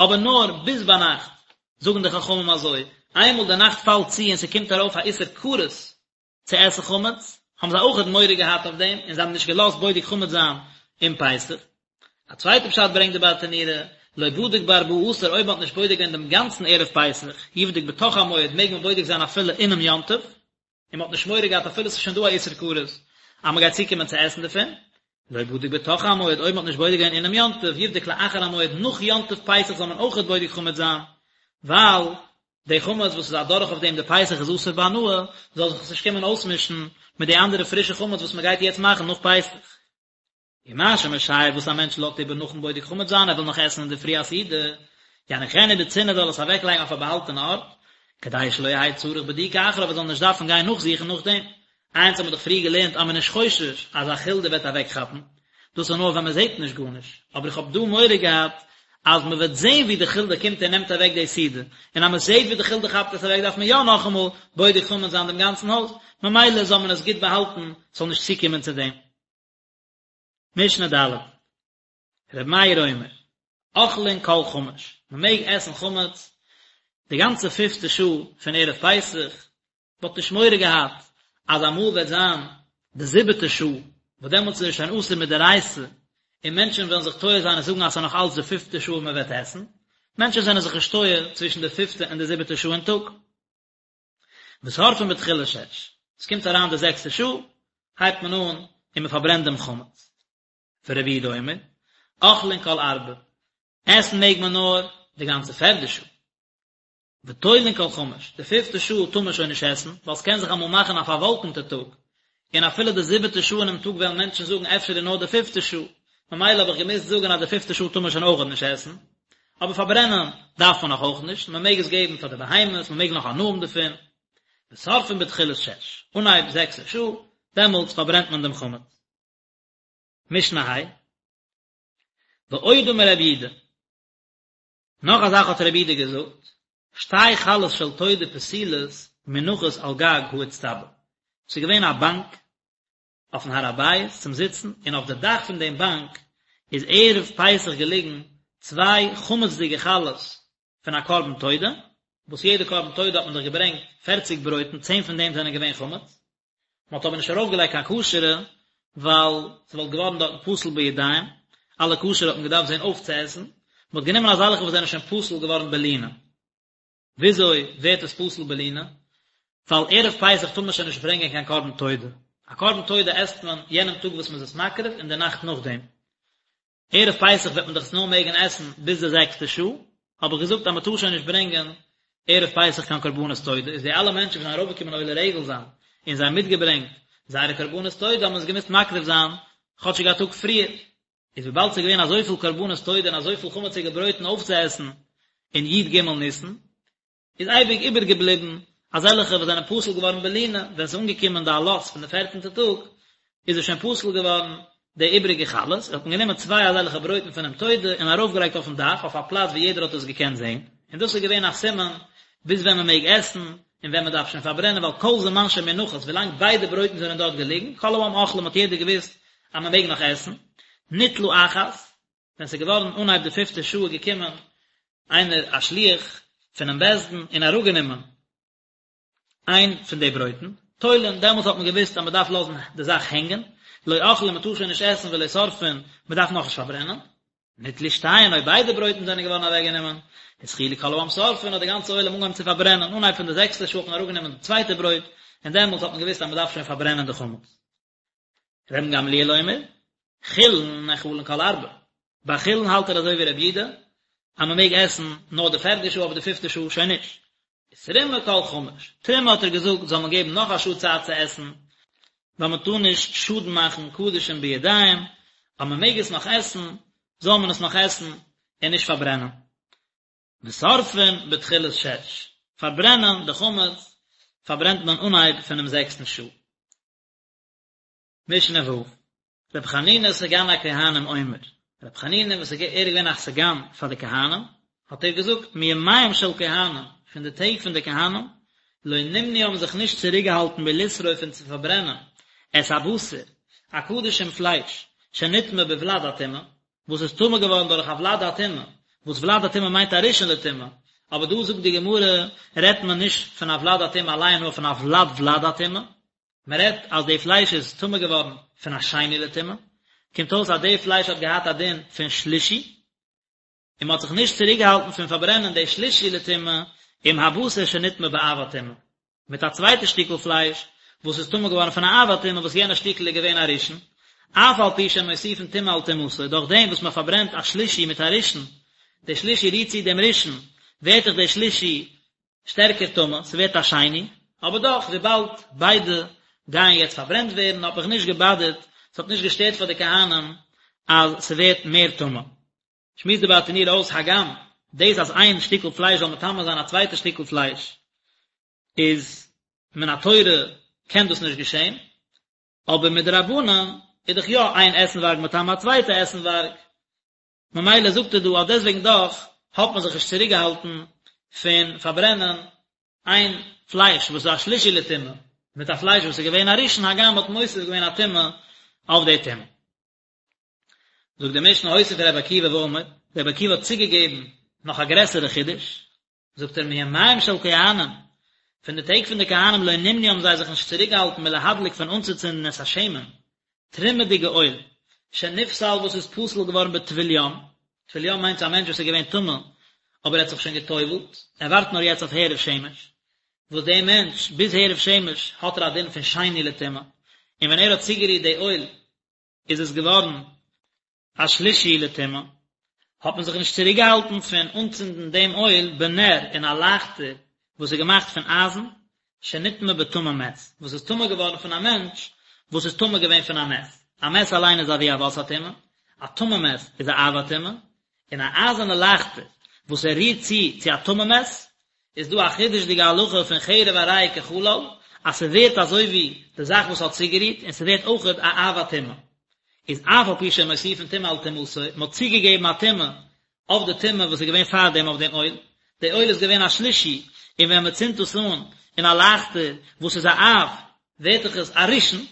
אבער נאר ביז ביינאכט, זאגן די חכמים אזוי, איינמאל די נאכט פאלט צו און ס'קומט ארויף א איסור כרת צו עסן חמץ, האבן זיי אויכעט מורא געהאט אויף דעם און זיי האבן נישט געלאזט בודק חמץ זיין אום פסח. א צווייטע פשט ברענגט די ברטנורא, לא בדק בארבעה עשר אויב מ'האט נישט בודק געווען דעם גאנצן ערב פסח, יבדוק בתוך המועד מעג מען בודק זיין אפילו אינעם יום טוב, און מען האט נישט מורא געהאט אפילו עס איז שוין דא א איסור כרת אז מען גייט צוקומען צו עסן דערפון, לא בדק בתוך המועד, אויב מען האט נישט בודק געווען אינעם יום טוב, יבדוק לאחר המועד, נאך יום טוב פסח זאל מען אויכעט בודק חמץ זיין, ווייל די חמץ וואס איז אדורך אויף דעם די פסח איז אסור בהנאה, זאל זיך עס נישט קומען אויסמישן מיט די אנדערע פרישע חמץ וואס מען גייט יעצט מאכן נאך פסח. ומה שמשייר וואס א מענטש לאזט איבער נאכן בודק חמץ זיין ער וויל נאך עסן אינדערפרי א סעודה, יניחנו בצנעה זאל עס אוועקלייגן אויף א באהאלטענע ארט, כדי שלא יהא צריך בדיקה אחריו ער זאל נישט דארפן גיין נאכזוכן נאכדעם. איינס האט מען דאך פריער געלערנט אז מען איז נישט חושש אז א חולדה וועט אוועקכאפן, דאס איז נאר ווען מען זעט נישט גארנישט, אבער איך האב דא מורא געהאט אז מען וועט זען ווי די חולדה קומט און נעמט אוועק די סעודה, און אז מען זעט ווי די חולדה כאפט עס אוועק דארף מען יא נאכאמאל בודק חמץ זיין דעם גאנצן הויז, ממילא זאל מען עס גוט באהאלטן ס'זאל נישט צוקומען צו דעם. משנה ד', ר' מאיר אומר, אוכלין כל חמש, מען מעג עסן חמץ די גאנצע פיפטע שעה פון ערב פסח, מען האט נישט מורא געהאט אז אמאל וועט זיין די זיבעטע שעה, וואס דעמאלטס איז עס שוין אסור מדאורייתא, און מענטשן וועלן זיך טועה זיין און זאגן אז ס'איז נאך אלץ די פיפטע שעה און מען וועט עסן, מענטשן זענען זיך נישט טועה צווישן די פיפטע און די זיבעטע שעה אין טאג. ושורפין בתחילת שש, עס קומט אריין די זעקסטע שעה, הייבט מען אן און מען פארברענט דעם חמץ. ורבי יהודה אומר, אוכלין כל ארבע, עסן מעג מען נאר די גאנצע פערדע שעה. ותולין כל חמש, די פיפטע שעה טאר מען שוין נישט עסן, ווייל ס'קען זיך אמאל מאכן א פארוואלקענטע טאג, און אפילו די זיבעטע שעה אינעם טאג וועלן מענטשן זאגן אפשר איז נאר די פיפטע שעה, ממילא האב איך געמוזט זאגן אז די פיפטע שעה טאר מען שוין אויכעט נישט עסן. אבער פארברענען דארף מען נאך אויך נישט, מען מעג עס געבן פאר די בהמות, מען מעג נאך הנאה האבן דערפון. ושורפין בתחילת שש, אנהייב זעקסע שעה, דעמאלטס פארברענט מען דעם חמץ. משנה ה'. ועוד אמר רבי יהודה, נאך א זאך האט רבי יהודה געזאגט, שתי חלות של תודה פסולות מונחות על גג האיצטבא, ס'איז געווען א באנק אויפן הר הבית צום זיצן, און אויף די דאך פון דעם באנק איז ערב פסח געליגן צוויי חמצ'דיגע חלות פון א קרבן תודה, וואס יעדע קרבן תודה האט מען דאך געברענגט פערציג ברויטן, צען פון דעם זענען געווען חמץ, מען האט אבער נישט ארויפגעלייגט קיין כשר'ע, ווייל ס'וואלט געווארן דארטן פסול בידיים, אלע כשר'ע האט מען געדארפט זען אויפצועסן, מען האט גענומען אזעלכע וואס זענען שוין פסול געווארן בלינה. וויאזוי ווערט עס פסול בלינה? ווייל ערב פסח טאר מען שוין נישט ברענגען קיין קרבן תודה. א קרבן תודה עסט מען יענעם טאג וואס מען איז עס מקריב און די נאכט נאכדעם. ערב פסח וועט מען דאך עס נאר מעגן עסן ביז די זעקסטע שעה, האב איך געזאגט אז מען טאר שוין נישט ברענגען ערב פסח קיין קרבנות תודה, איז די אלע מענטשן וואס זענען ארויפגעקומען עולה רגל זיין און זיי האבן מיטגעברענגט זייערע קרבנות תודה האבן עס געמוזט מקריב זיין. כאטשיג א טאג פריער, איז וויבאלד ס'איז געווען אזויפיל קרבנות תודה און אזויפיל חמציגע ברויטן אויפצועסן אין י ג ניסן, איז אייביג איבערגעבליבן אזעלכע וואס זענען פסול געווארן בלינה, ווען ס'איז אנגעקומען די עלות פון די פערצנטע טאג, איז עס שוין פסול געווארן די איבריגע חלות, האט מען גענומען צוויי אזעלכע ברויטן פונעם תודה און ארויפגעלייגט אויפן דאך אויף א פלאץ וואו יעדער האט עס געקענט זען, און דאס איז געווען א סימן ביז ווען מען מעג עסן און ווען מען דארף שוין פארברענען, ווייל כל זמן שמונחות, ווילאנג ביידע ברויטן זענען דארט געליגן, כל העם אוכלים האט יעדער געוואוסט אז מען מעג נאך עסן, ניטלה אחת, ווען ס'איז געווארן אנהייב די פיפטע שעה איז געקומען איינער א שליח פונעם בית דין און אראפגענומען איין פון די ברויטן, תולין, דעמאלטס האט מען געוואוסט אז מען דארף לאזן די זאך הענגען, לא אוכלין מען טאר שוין נישט עסן ולא שורפין, מען דארף נאכנישט פארברענען. ניטלו שתיהן אויב ביידע ברויטן זענען געווארן אוועקגענומען, התחילו כל העם שורפין האט די גאנצע עולם אנגעהויבן צו פארברענען, אנהייב פון די זעקסטע שעה האט מען אראפגענומען די צווייטע ברויט, און דעמאלטס האט מען געוואוסט אז מען דארף שוין פארברענען די חמץ. רבן גמליאל אומר, חולין נאכלין כל ארבע. ביי חולין האלט ער אזוי ווי רבי יהודה, אז מען מעג עסן נאר די פערדע שעה אבער די פיפטע שעה שוין נישט. ותרומה כל חמש. תרומה האט ער געזאגט זאל מען געבן נאך א שעה צייט צו עסן, ווייל מען טאר נישט שאדן מאכן קדשים בידיים, אז מען מעג עס נאך עסן, זאל מען עס נאך עסן און נישט פארברענען. ושורפין בתחילת שש. פארברענען די חמץ פארברענט מען אנהייב פונעם זעקסטן שעה. משנה ו', רבי חנינא סגן הכהנים אומר, רבי חנינא וואס ער איז געווען א סגן פאר די כהנים, האט ער געזאגט, מימיהם של כהנים, פון די טעג פון די כהנים, לא נמנעו האבן זיך נישט צוריקגעהאלטן מלשרוף פון צו פארברענען, את הבשר, א קדשים פלייש, שנטמא בולד הטומאה, וואס איז טמא געווארן דורך א ולד הטומאה, וואס ולד הטומאה מיינט א ראשון לטומאה, אבער דא זאגט די גמרא, רעדט מען נישט פון א ולד הטומאה אליין נאר פון א ולד ולד הטומאה, מען רעדט אז די פלייש איז טמא געווארן פון א שני לטומאה, קומט אויס אז די פלייש האט געהאט א דין פון שלישי, און מען האט זיך נישט צוריקגעהאלטן פון פארברענען די שלישי לטומאה עם הבשר שנטמא באב הטומאה, מיט א צווייטע שטיקל פלייש וואס איז טמא געווארן פון א אב הטומאה וואס יענע שטיקל איז געווען א ראשון, אף על פי שמוסיפין טומאה על טומאתו, דורך דעם וואס מען פארברענט א שלישי מיט א ראשון, די שלישי רירט צו דעם ראשון, ווערט דאך די שלישי שטערקער טמא, ס'ווערט א שני, אבער דאך וויבאלד ביידע גייען יעצט פארברענט ווערן האט מיך נישט געבאדערט, ס'האט נישט געשטערט פאר די כהנים אז ס'ווערט מער טמא. שמועסט די ברטנורא אויס הגם דאס אז איין שטיקל פלייש זאל מטמא זיין א צווייטע שטיקל פלייש איז מן התורה קען דאס נישט געשען, אבער מדרבנן איז דאך יא איין עסנווארג מטמא א צווייטע עסנווארג, ממילא זאגט ער דא אז דעסוועגן דאך האט מען זיך נישט צוריק געהאלטן פון פארברענען איין פלייש וואס איז א שלישי לטומאה מיט א פלייש וואס איז געווען א ראשון הגם מ'האט מוסיף געווען א טומאה אויף די טומאה. זאגט די משנה הוסיף ר' עקיבא ואמר, ר' עקיבא האט צוגעגעבן נאך א גרעסערע חידוש, זאגט ער מימיהם של כהנים, פון די טעג פון די כהנים לא נמנעו האבן זיי זיך נישט צוריקגעהאלטן מלהדליק פון אנצוצינדן את השמן, תרומה'דיגע אויל, שנפסל וואס איז פסול געווארן בטבול יום, טבול יום מיינט א מענטש וואס איז געווען טמא אבער ער האט זיך שוין גע'טובל'ט, ער ווארט נאר יעצט אויף הערב שמש, וואס דער מענטש ביז הערב שמש האט ער א דין פון שני לטומאה, און ווען ער האט צוגערירט די אויל איז עס געווארן א שלישי לטומאה, האט מען זיך נישט צוריקגעהאלטן פון אנצינדן דעם אויל בנר אין א לייכטער וואס איז געמאכט פון אייזן, שנטמא בטמא מת, וואס איז טמא געווארן פון א מענטש וואס איז טמא געווען פון א מת, א מת אליין איז אבי אבות הטומאה, א טמא מת איז א אב הטומאה, און א אייזערנע לייכטער וואס ער רירט צו צו א טמא מת, איז דא א חידוש'דיגע הלכה פון חרב הרי היא כחלל, אז ס'ווערט אזוי ווי די זאך וואס האט צוגערירט, און ס'ווערט אויכעט א אב הטומאה. איז אף על פי שמוסיפין טומאה על טומאתו, מ'האט צוגעגעבן א טומאה אויף די טומאה וואס איז געווען פארדעם אויף דעם אויל, די אויל איז געווען א שלישי, און ווען מ'צינדט עס אן אין א לייכטער וואס איז א אב, ווערט דאך עס א ראשון,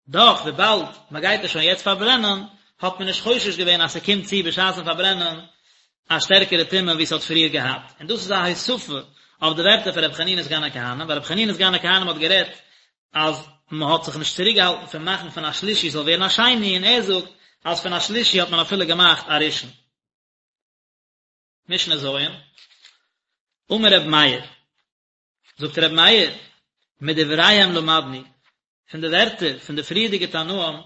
דאך וויבאלד מען גייט עס שוין יעצט פארברענען, האט מען נישט חושש געווען אז ס'קומט צו בשעת'ן פארברענען א שטערקערע טומאה ווי ס'האט פריער געהאט, און דאס איז א הוספה אויף די ווערטער פון רבי חנינא סגן הכהנים, ווייל רבי חנינא סגן הכהנים האט גערעדט אז מען האט זיך נישט צוריקגעהאלטן פון מאכן פון א שלישי זאל ווערן א שני, און ער זאגט אז פון א שלישי האט מען אפילו געמאכט א ראשון. משנה ז', אמר רבי מאיר, זאגט רבי מאיר, מדבריהם למדנו, פון די ווערטער פון די פריערדיגע תנאים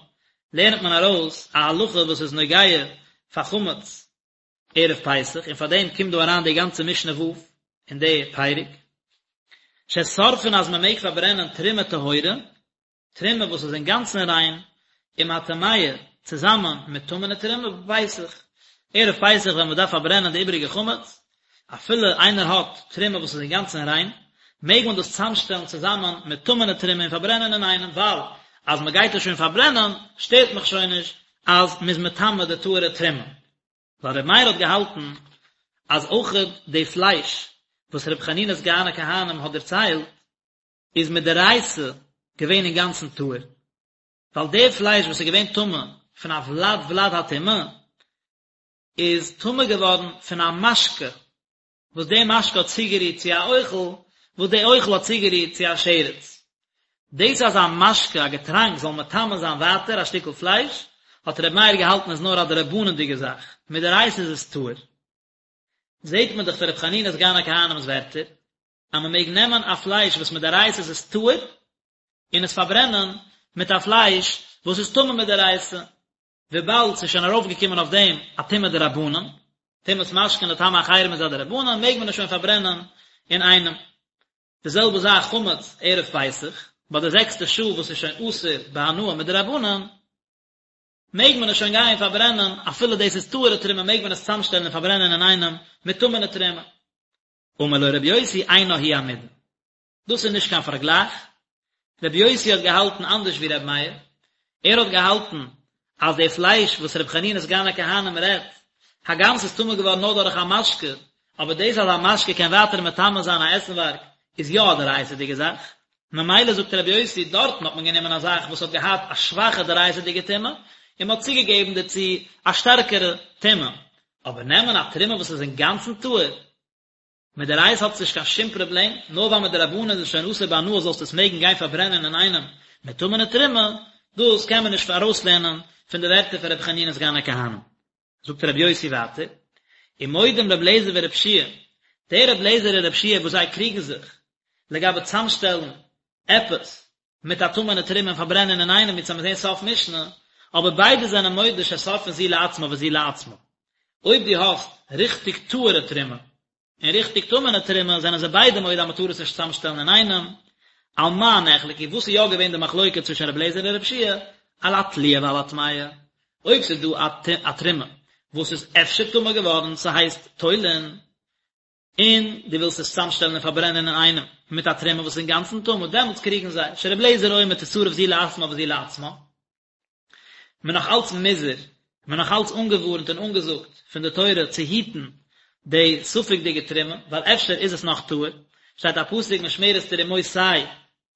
לערנט מען ארויס א הלכה וואס איז נוגע פאר חמץ ערב פסח, און פאר דעם קומט דא אריין די גאנצע משנה ו' אין די פרק, ששורפין אז מען מעג פארברענען תרומה טהורה, תרומה וואס איז אינגאנצן ריין, עם הטמאה, צוזאמען מיט טמא'נע תרומה בפסח, ערב פסח ווען מען דארף פארברענען די איבעריגע חמץ, אפילו איינער האט תרומה וואס איז אינגאנצן ריין, מעג מען דאס צוזאמשטעלן צוזאמען מיט טמא'נע תרומה און פארברענען אינאיינעם, ווייל אז מען גייט עס שוין פארברענען, שטערט מיך שוין נישט אז מען איז מטמא די טהור'ע תרומה. ווייל ר' מאיר האט געהאלטן אז אויכעט די פלייש וואס ר' חנינא סגן הכהנים האט דערציילט איז מדאורייתא געווען אינגאנצן טהור, ווייל די פלייש וואס איז געווען טמא פון א ולד ולד הטומאה איז טמא געווארן פון א משקה וואס די משקה האט צוגערירט צו א אוכל, וואס די אוכל האט צוגערירט צו א שרץ. דאס אז א משקה, א געטראנק, זאל מטמא זיין ווייטער א שטיקל פלייש, האט ר' מאיר געהאלטן איז נאר א דרבנן'דיגע זאך, מדאורייתא איז עס טהור. זעט מען דאך פון ר' חנינא סגן הכהנים'ס ווערטער, אז מען מעג נעמען א פלייש וואס מדאורייתא איז עס טהור, און עס פארברענען מיט א פלייש וואס איז טמא מדאורייתא. וויבאלד ס'איז שוין ארויפגעקומען אויף דעם א טומאה דרבנן, טומאת משקין לטמא אחרים איז א דרבנן, מעג מען עס שוין פארברענען אינאיינעם. די זעלבע זאך חמץ ערב פסח, ביי די זעקסטע שעה וואס איז שוין אסור בהנאה מדרבנן, מעג מען עס שוין גיין פארברענען, אפילו דאס איז טהור'ע תרומה מעג מען עס צוזאמשטעלן און פארברענען אינאיינעם מיט טמא'נע תרומה. אמר לו רבי יוסי אינה היא המידה. דאס איז נישט קיין פארגלייך, רבי יוסי האט געהאלטן אנדערש ווי רבי מאיר, ער האט געהאלטן אז די פלייש וואס רבי חנינא סגן הכהנים רעדט, הגם ס'איז טמא געווארן נאר דורך א משקה, אבער דאס אז א משקה קען ווייטער מטמא זיין א עסנווארג איז יא א דאורייתא'דיגע זאך, ממילא זאגט רבי יוסי, דארטן האט מען גענומען א זאך וואס האט געהאט א שוואכע דאורייתא'דיגע טומאה, און מ'האט צוגעגעבן דערצו א שטערקערע טומאה, אבער נעמען א תרומה וואס איז אינגאנצן טהור, מדאורייתא האט עס נישט קיין שום פראבלעם, נאר ווייל מדרבנן איז עס שוין אסור בהנאה זאלסטו עס מעגן גיין פארברענען אינאיינעם מיט טמא'נע תרומה, דאס קען מען נישט ארויסלערנען פון די ווערטער פון רבי חנינא סגן הכהנים. זאגט רבי יוסי ווייטער, ומודים רבי אליעזר ורבי יהושע, דער רבי אליעזר און רבי יהושע וואס זיי קריגן זיך לגבי צאמשטעלן עפעס מיט א טמא'נע תרומה און פארברענען אינאיינעם ווי מ'וועט זען סוף משנה, אבער ביידע זענען מודה ששורפין זו לעצמה וזו לעצמה. אויב דו האסט ריכטיג טהור'ע תרומה און ריכטיג טמא'נע תרומה זענען זיי ביידע מודה אז מ'טאר עס נישט צוזאמשטעלן אינאיינעם. על מה נחלקו, וואס איז יא געווען די מחלוקה צווישן רבי אליעזר און רבי יהושע? על התלויה ועל הטמאה. אויב ס'איז דא א תרומה וואס איז אפשר טמא געווארן, ס'הייסט תולין, און דו ווילסט עס צוזאמשטעלן און פארברענען אינאיינעם מיט א תרומה וואס איז אינגאנצן טמא, דעמאלטס קריגן זיי, שרבי אליעזר אומר תשרף זו לעצמה וזו לעצמה. מען נאך אלץ מוזהר, מען נאך אלץ אנגעווארנט און אנגעזאגט פון די תורה צו היטן די ספק'דיגע תרומה, ווייל אפשר איז עס נאך טהור, שטייט א פסוק משמרת תרומותי,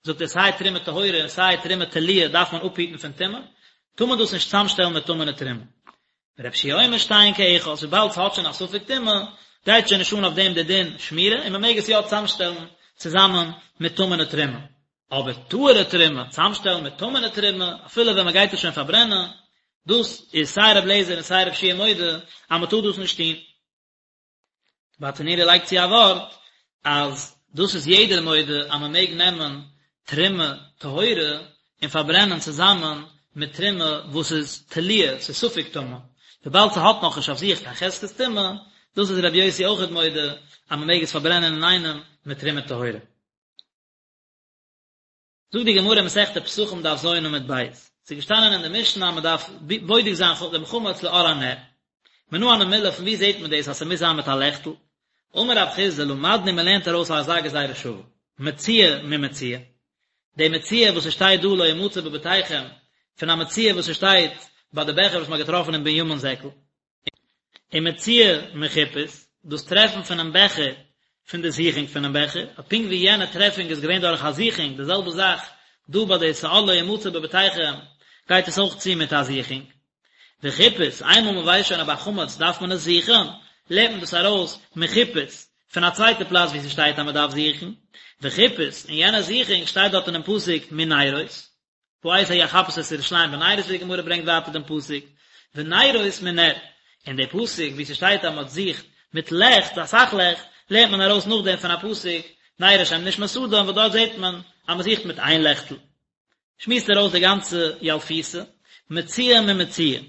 זאגט ער סיי תרומה טהורה און סיי תרומה תלויה דארף מען אפהיטן פון טומאה, טאר מען דאס נישט צוזאמשטעלן מיט טמא'נע תרומה. ורבי יהושע אומר שתיהן כאחת, וויבאלד ס'האט שוין א ספק טומאה, גייט שוין נישט אן אויף דעם די דין שמירה, און מ'מעג עס יא צוזאמשטעלן צוזאמען מיט טמא'נע תרומה. אבער טהור'ע תרומה צוזאמשטעלן מיט טמא'נע תרומה, אפילו ווען מ'גייט עס שוין פארברענען, דאס איז סיי רבי אליעזר און סיי רבי יהושע מודה אז מ'טאר דאס נישט טון. ברטנורא לייגט צו א ווארט אז דאס איז יעדער מודה אז מען מעג נעמען תרומה טהורה און פארברענען צוזאמען מיט תרומה וואס איז תלויה, ס'איז ספק טמא, וויבאלד ס'האט נאכנישט אויף זיך קיין חזקת טומאה, דאס איז רבי יוסי אויכעט מודה אז מען מעג עס פארברענען אינאיינעם מיט תרומה טהורה. זאגט די גמרא אין מסכת פסחים דף ז עמוד ב', ס'איז געשטאנען אין די משנה אז מ'דארף בודק זיין דעם חמץ לאור הנר. מנא הני מילי פון וואו זעט מען דאס אז ס'מוז זיין מיט א לעכטל? אמר רב חסדא למדנו מ'לערנט ארויס אזא גזירה שווה, מציאה ממציאה. די מציאה וואס ס'שטייט דא לא ימצא בבתיכם, פון א מציאה וואס ס'שטייט ביי די בעכער וואס מ'האט געטראפן אין בנימין זעקל. און מציאה מחיפוש, דאס טרעפן פונעם בעכער פון די זוכונג פונעם בעכער, אז פונקט ווי יענע טרעפונג איז געווען דורך א זוכונג, די זעלבע זאך דא ביי די שאור לא ימצא בבתיכם גייט עס אויך צו מיט א זוכונג. וחיפוש, איינמאל מען ווייסט שוין אז ביי חמץ דארף מען עס זוכן, לערנט מען דאס ארויס מחיפוש, פון א צווייטע פלאץ וואו ס'שטייט אז מען דארף זוכן, וחיפוש, און יענע זוכונג שטייט דארט אינעם פסוק מנרות. בעת ההיא אחפש את ירושלים בנרות ווי די גמרא ברענגט ווייטער דעם פסוק ונרות מנר, און די פסוק ווי ס'שטייט אז מ'האט זוכט מיט לעכט אסאך לעכט לערנט מען ארויס נאכדעם פון א פסוק נר השם נשמת אדם וואס דארט זעט מען אז מ'זוכט מיט איין לעכטל. שמועסט ער אויס די גאנצע ילפותא, מציאה ממציאה.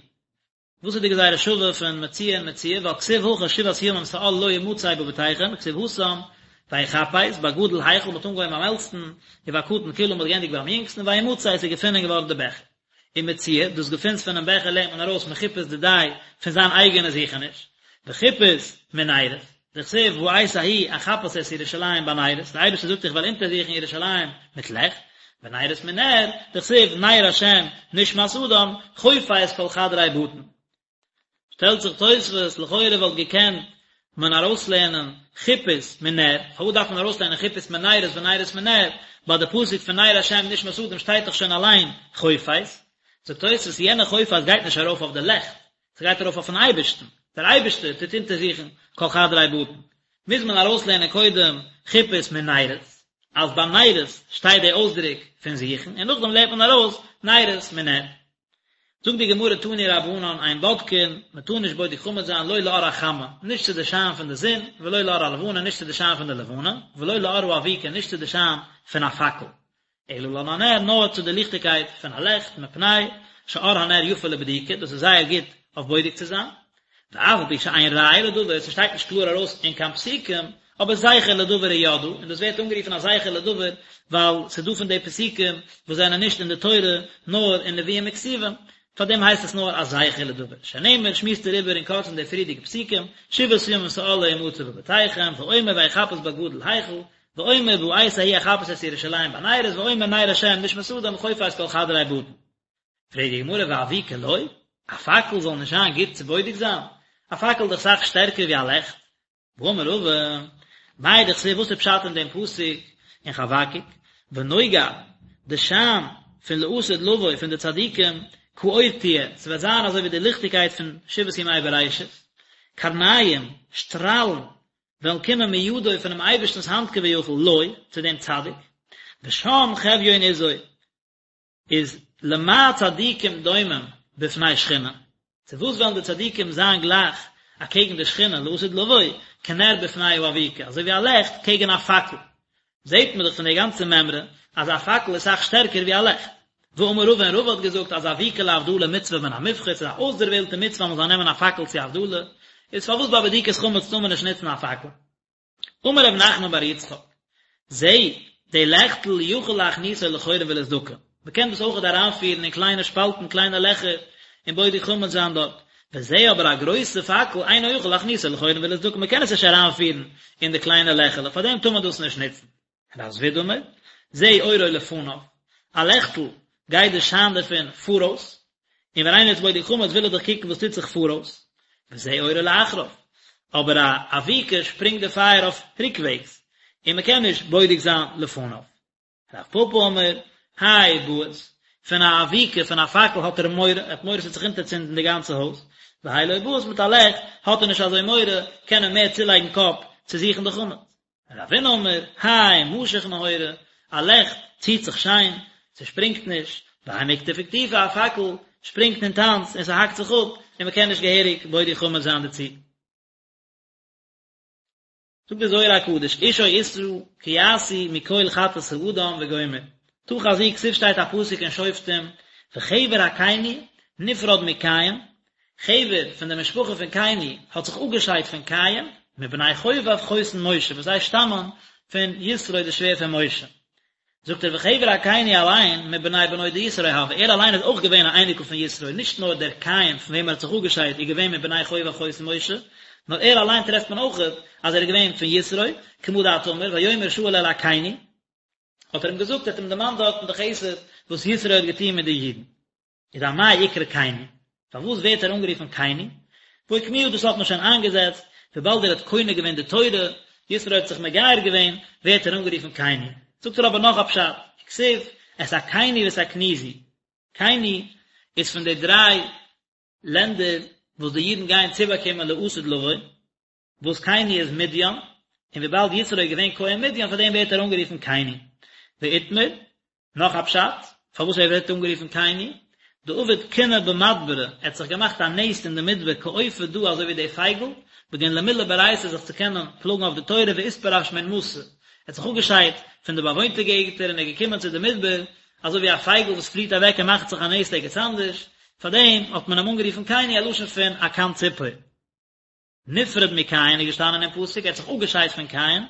וואס איז די גזירה שווה פון מציאה און מציאה, ווייל כתיב הכא שבעת ימים שאור לא ימצא בבתיכם, וכתיב התם, ויחפש, בגדול החל, מ'האט אנגעהויבן ביים עלטסטן, ובקטן כלה, מ'האט געענדיגט ביים יונגסטן, וימצא, עס איז געפונען געווארן די בעכער. ומציעא, דאס געפינס פונעם בעכער לערנט מען ארויס מחיפוש דידיה פון זיין אייגענע זוכעניש, וחיפוש מנרות, דכתיב בעת ההיא אחפש את ירושלים בנרות, דער אייבערשטער זאגט איך וועל אונטערזוכן ירושלים מיט לעכט, ונרות מנר, דכתיב נר השם נשמת אדם, חופש כל חדרי בטן. שטעלט זיך תוספות, לכאורה וואלט געקענט מען ארויסלערנען חיפוש מנר, פארוואס דארף מען ארויסלערנען חיפוש מנרות ונרות מנר, ביי די פסוק פון נר השם נשמת אדם שטייט דאך שוין אליין חופש, זאגט תוספות יענע חופש גייט נישט ארויף אויף די לעכט, ס'גייט ארויף אויפן אייבערשטן, דער אייבערשטער טוט אונטערזוכן כל חדרי בטן, מוז מען ארויסלערנען קודם חיפוש מנרות, אז ביי נרות שטייט די אויסדרוק פון זוכן, און נאכדעם לערנט מען ארויס נרות מנר. זאגט די גמרא תנו רבנן אין בודקין, מען טאר נישט בודק חמץ זיין לא לאור החמה, נישט צו די שיין פון די זון, ולא לאור הלבנה, נישט צו די שיין פון די לבנה, ולא לאור האבוקה, נישט צו די שיין פון א פאקל, אלא לנר, נאר צו די ליכטיגקייט פון א לעכט, מפני שאור הנר יפה לבדיקה, דאס איז זייער גוט אויף בודק צו זיין, ואף על פי שאין ראיה לדבר, ס'שטייט נישט קלאר ארויס אין קיין פסוקים, אבער זכר לדבר הוא ידעה, און דאס ווערט אנגערופן א זכר לדבר, ווייל ס'איז דא פון די פסוקים וואס זענען נישט אין די תורה, נאר אין נביאים וכתובים, פאר דעם הייסט עס נאר א זכר לדבר. שנאמר, שמועסט ער איבער אין קורצן די פריערדיגע פסוקים, שבעת ימים שאור לא ימצא בבתיכם, ואומר ויחפש בגדול היכל, ואומר בעת ההיא אחפש את ירושלים בנרות, ואומר נר השם נשמת אדם חופש כל חדרי בטן. פרעגט די גמרא ואבוקה לא? א פאקל זאל נישט זיין גוט צו בודק זיין? א פאקל איז דאך אסאך שטערקער ווי א לעכט. והאמר רבא, מאי דכתיב וואס איז פשט אין דעם פסוק אין חבקוק, ונוגה, די שיין פון לעתיד לבוא פון די צדיקים, כאור תהיה, ס'וועט זיין אזוי ווי די ליכטיגקייט פון שבעת ימי בראשית, קרניים, שטראלן, וועלן קומען מידו פונעם אייבערשטנ'ס האנט כביכול, לו, צו דעם צדיק, ושם חביון עזו, איז למה צדיקים דומים בפני שכינה, צו וואס וועלן די צדיקים זיין גלייך אקעגן די שכינה לעתיד לבוא, כנר בפני האבוקה, אזוי ווי א לעכט קעגן א פאקל, זעט מען דאך פון די גאנצע מימרא אז א פאקל איז אסאך שטערקער ווי א לעכט. ואמר רבא און רבא האט געזאגט אז אבוקה להבדלה מצוה מן המובחר, ס'איז א אויסדערוועלטע מצוה אז מען זאל נעמען א פאקל צו הבדלה, איז פארוואס ביי בדיקת חמץ טאר מען נישט נוצן א פאקל? אמר רב נחמן בר יצחק, זה, די לעכטל יכול להכניסו לחורין ולסדקין, מען קען דאס אויכעט אריינפירן אין קליינע שפאלטן, קליינע לעכער, און בודק חמץ זיין דארט, וזה אבער א גרויסע פאקל אינו יכול להכניסו לחורין ולסדקין, מען קען עס נישט אריינפירן אין די קליינע לעכעלעך, פארדעם טאר מען דאס נישט נוצן. רב זביד אמר, זה אורו לפניו, א לעכטל גייט די שיין דערפון פאראויס, און ווען איינער איז בודק חמץ וויל ער דאך קוקן וואס טוט זיך פאראויס, וזה אורו לאחריו, אבער א אבוקה שפרינגט די פייער אויף ריקוועגס, און מען קען נישט בודק זיין לפניו. רב פפא אמר, האי בעית, פון א אבוקה, פון א פאקל האט ער מורא, ער האט מורא ס'וועט זיך אונטערצינדן די גאנצע הויז, והאי לא בעית מיט א לעכט האט ער נישט אזוי מורא, קען ער מער צולייגן קאפ צו זוכן די חמץ. רבינא אמר, האי משיך נהורא, א לעכט ציט זיך שיין, ס'שפרינגט נישט, והאי מיקטף איקטופי, א פאקל שפרינגט און טאנצט און ס'האקט זיך אפ, און מ'קען נישט געהעריג בודק חמץ זיין דערצו. זאגט דער זוהר הקדוש, איש או אשה כי יעשו מכל חטאת האדם וגומר, תא חזי כתיב שטייט א פסוק אין שופטים, וחבר הקיני נפרד מקין, חבר פון די משפחה פון קיני האט זיך אפגעשיידט פון קין, מבני חובב חותן משה, וואס זיי שטאמען פון יתרו די שווער פון משה. זאגט ער וחבר הקיני אליין מבני בנו דיתרו הוה, ער אליין איז אויך געווען א אייניקל פון יתרו, נישט נאר דער קין פון וועם ער האט זיך אפגעשיידט איז געווען מבני חובב חותן משה, נאר ער אליין טרעפט מען אויך אז ער איז געווען פון יתרו, כמה דאת אמר, ויאמר שאול אל הקיני, האט ער אים געזאגט, ער האט אים דערמאנט דארטן די חסד וואס יתרו האט געטון מיט די אידן. איז אמאי אקרי קיני? פארוואס ווערט ער אנגערופן קיני? ואוקמוה דאס האט מען שוין איינגעזעצט, וויבאלד ער האט קונה געווען די תורה, יתרו האט זיך מגייר געווען, ווערט ער אנגערופן קיני. זאגט ער אבער נאך א פשט, וכתיב, את הקיני ואת הקניזי. קיני איז פון די דריי לענדער וואס די אידן גייען צובאקומען לעתיד לבוא, וואס קיני איז מדין, און וויבאלד יתרו איז געווען כהן מדין פאר דעם ווערט ער אנגערופן קיני. ואיתמר, נאך א פשט פארוואס ער ווערט אנגערופן קיני, דעבד קינא במדברא, ער האט זיך געמאכט א נעסט אין די מדבר כעופא דא אזוי ווי די פייגל, בגין למילי באורייתא זיך צו קענען פלאגן אויף די תורה ואתפרש מן מתא, ער האט זיך אפגעשיידט פון די באוואוינטע געגנטער און ער איז געקומען צו די מדבר, אזוי ווי א פייגל וואס פליעט אוועק און מאכט זיך א נעסט ערגעץ אנדערש, פאר דעם האט מען אים אנגערופן קיני א לשון פון א קן ציפור. נפרד מקין איז געשטאנען אין פסוק, ער האט זיך אפגעשיידט פון קין,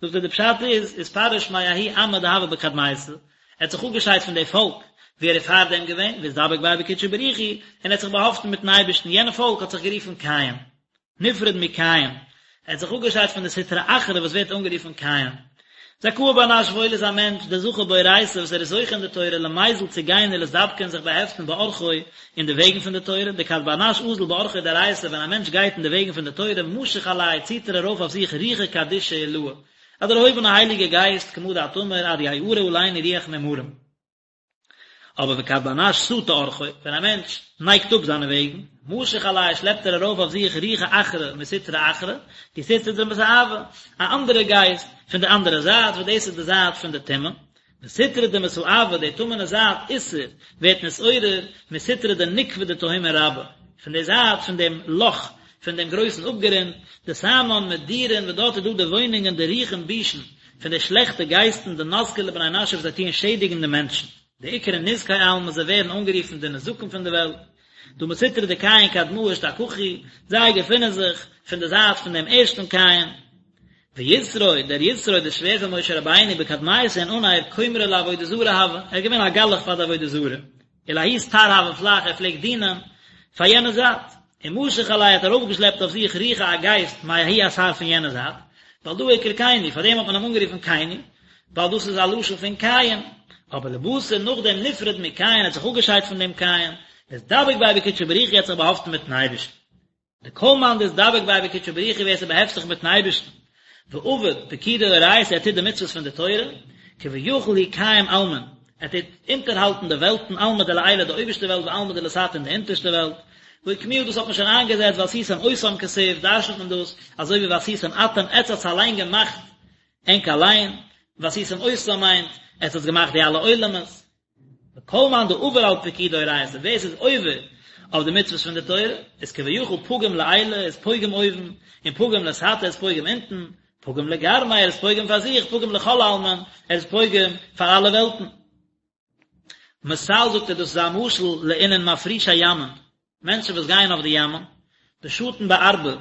זאגט ער די פשט איז, אתפרש מההוא עמא דהוה בקדמיתא, ער האט זיך אפגעשיידט פון די פאלק. ווי ער איז פארדעם געווען, ואתדבק ביה בקודשא בריך הוא, און ער האט זיך באהאפטן מיטן אייבערשטן, יענע פאלק האט זיך גערופן קיים. נפרד מקין, ער האט זיך אפגעשיידט פון די סטרא אחרא וואס ווערט אנגערופן קין. זכאה בר נש וואויל איז א מענטש, דזכה באורייתא וואס ער איז זוכה אין די תורה, למיזל צו גיין ולאתדבקא און זיך באהעפטן באורחוי אין די וועגן פון די תורה, דכד בר נש אזיל באורחוי דאורייתא ווען א מענטש גייט אין די וועגן פון די תורה, משיך עליה ציט ער ארויף אויף זיך רוחא קדישא עילאה, א דערהויבענע הייליגע גייסט, כמה דאת אמר, עד יערה עלינו רוח ממרום. אבער וכד בר נש סטי אורחוי, ווען א מענטש נייגט אפ זיינע וועגן, משיך עליה שלעפט ער ארויף אויף זיך רוחא אחרא מסטרא אחרא, די סטרא דמסאבא, א אנדערע גייסט פון די אנדערע זייט, וואס דאס איז די זייט פון די טומאה, וסטרא דמסאבא, די טמא'נע זייט, אתער, ווערט נתעורר, מסטרא דנוקבא דתהומא רבה, פון די זייט פון דעם לאך פון דעם גרויסן אפגרונט, דתמן מדורין, וואס דארט איז דא די וואוינונגען דרוחין בישין, פון די שלעכטע גייסטן דנזקי לבני נשא וואס זיי טוען שעדיגן די מענטשן. דאקרי נזקי עלמא זיי ווערן אנגערופן די נזקים פון די וועלט. דהא מסטרא דקין קדמאה אשתכחו, זיי געפינען זיך פון די זייט פון דעם ערשטן קין. ויתרו, דער יתרו, דער שווער פון משה רבינו, בקדמיתא אין אנהייב כומרא לעבודה זרה הוה, ער איז געווען א גלח פאר די עבודה זרה. ולההוא אתר הוה פלח ער פלעגט דינען פאר יענע זייט, ומשך עליה האט ארויפגעשלעפט אויף זיך רוחא א גייסט מההוא אתר פון יענע זייט, ועל דא אקרי קיני, פאר דעם האט מען אים אנגערופן קיני, ווייל דאס איז א לשון פון קין, אבער לבתר נאכדעם נפרד מקין האט זיך אפגעשיידט פון דעם קין, ואתדבק ביה בקודשא בריך הוא האט זיך באהאפטן מיטן אייבערשטן. דכל מאן דאתדבק ביה בקודשא בריך הוא ווער ס'באהעפט זיך מיטן אייבערשטן, ועביד פקודי אורייתא ער טוט די מצוות פון די תורה, כביכול הוא קיים עלמין, ער טוט אונטערהאלטן די וועלטן עלמא דלעילא די אויבערשטע וועלט ועלמא דלתתא און די אונטערשטע וועלט, והא אוקמוה דאס האט מען שוין איינגעזעצט ועשיתם אותם כתיב דרש'נט מען דאס אזוי ווי ועשיתם אתם עטץ האטס אליין געמאכט ענק אליין, ועשיתם אותם מיינט עטץ האטס געמאכט די אלע עולמות. וכל מאן דעבר על פקודי אורייתא, ווער ס'איז עובר אויף די מצוות פון די תורה, איז כביכול פגים לעילא, איז פוגם אויבן, און פגים לתתא איז פוגם אונטן, פגים לגרמיה, ער איז פוגם פאר זיך, פגים לכל עלמין, ער איז פוגם פאר אלע וועלטן. מתל זאגט ער דאס איז א משל לאינון מפרישי ימין, מענטשן וואס גייען אויף די ימ'ן, דשטין בארבא,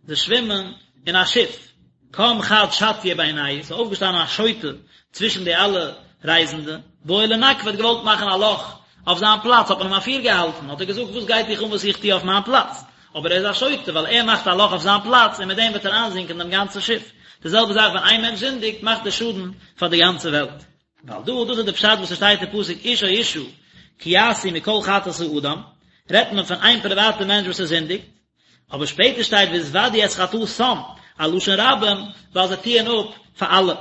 זיי שווימען אין א שיף, קם חד שטיא בינייהו, ס'איז אויפגעשטאנען א שוטה צווישן די אלע רייזנדע, בעי לנקבא האט געוואלט מאכן א לאך אויף זיין פלאץ, האט מען אים אפירגעהאלטן, האט ער געזאגט וואס גייט דיך אן וואס איך טו אויף מיין פלאץ, אבער ער איז א שוטה ווייל ער מאכט א לאך אויף זיין פלאץ און מיט דעם וועט ער איינזינקען דעם גאנצן שיף, די זעלבע זאך ווען איין מענטש זינדיגט מאכט ער שאדן פאר די גאנצע וועלט. ועל דא, דאס איז די פשט וואס עס שטייט אין פסוק איש או אשה כי יעשו מכל חטאת האדם, רעדט מען פון איין פריוואטע מענטש וואס ער זינדיגט, אבער שפעטער שטייט והתודו את חטאתם, א לשון רבים, ווייל זיי טוען אפ פאר אלע.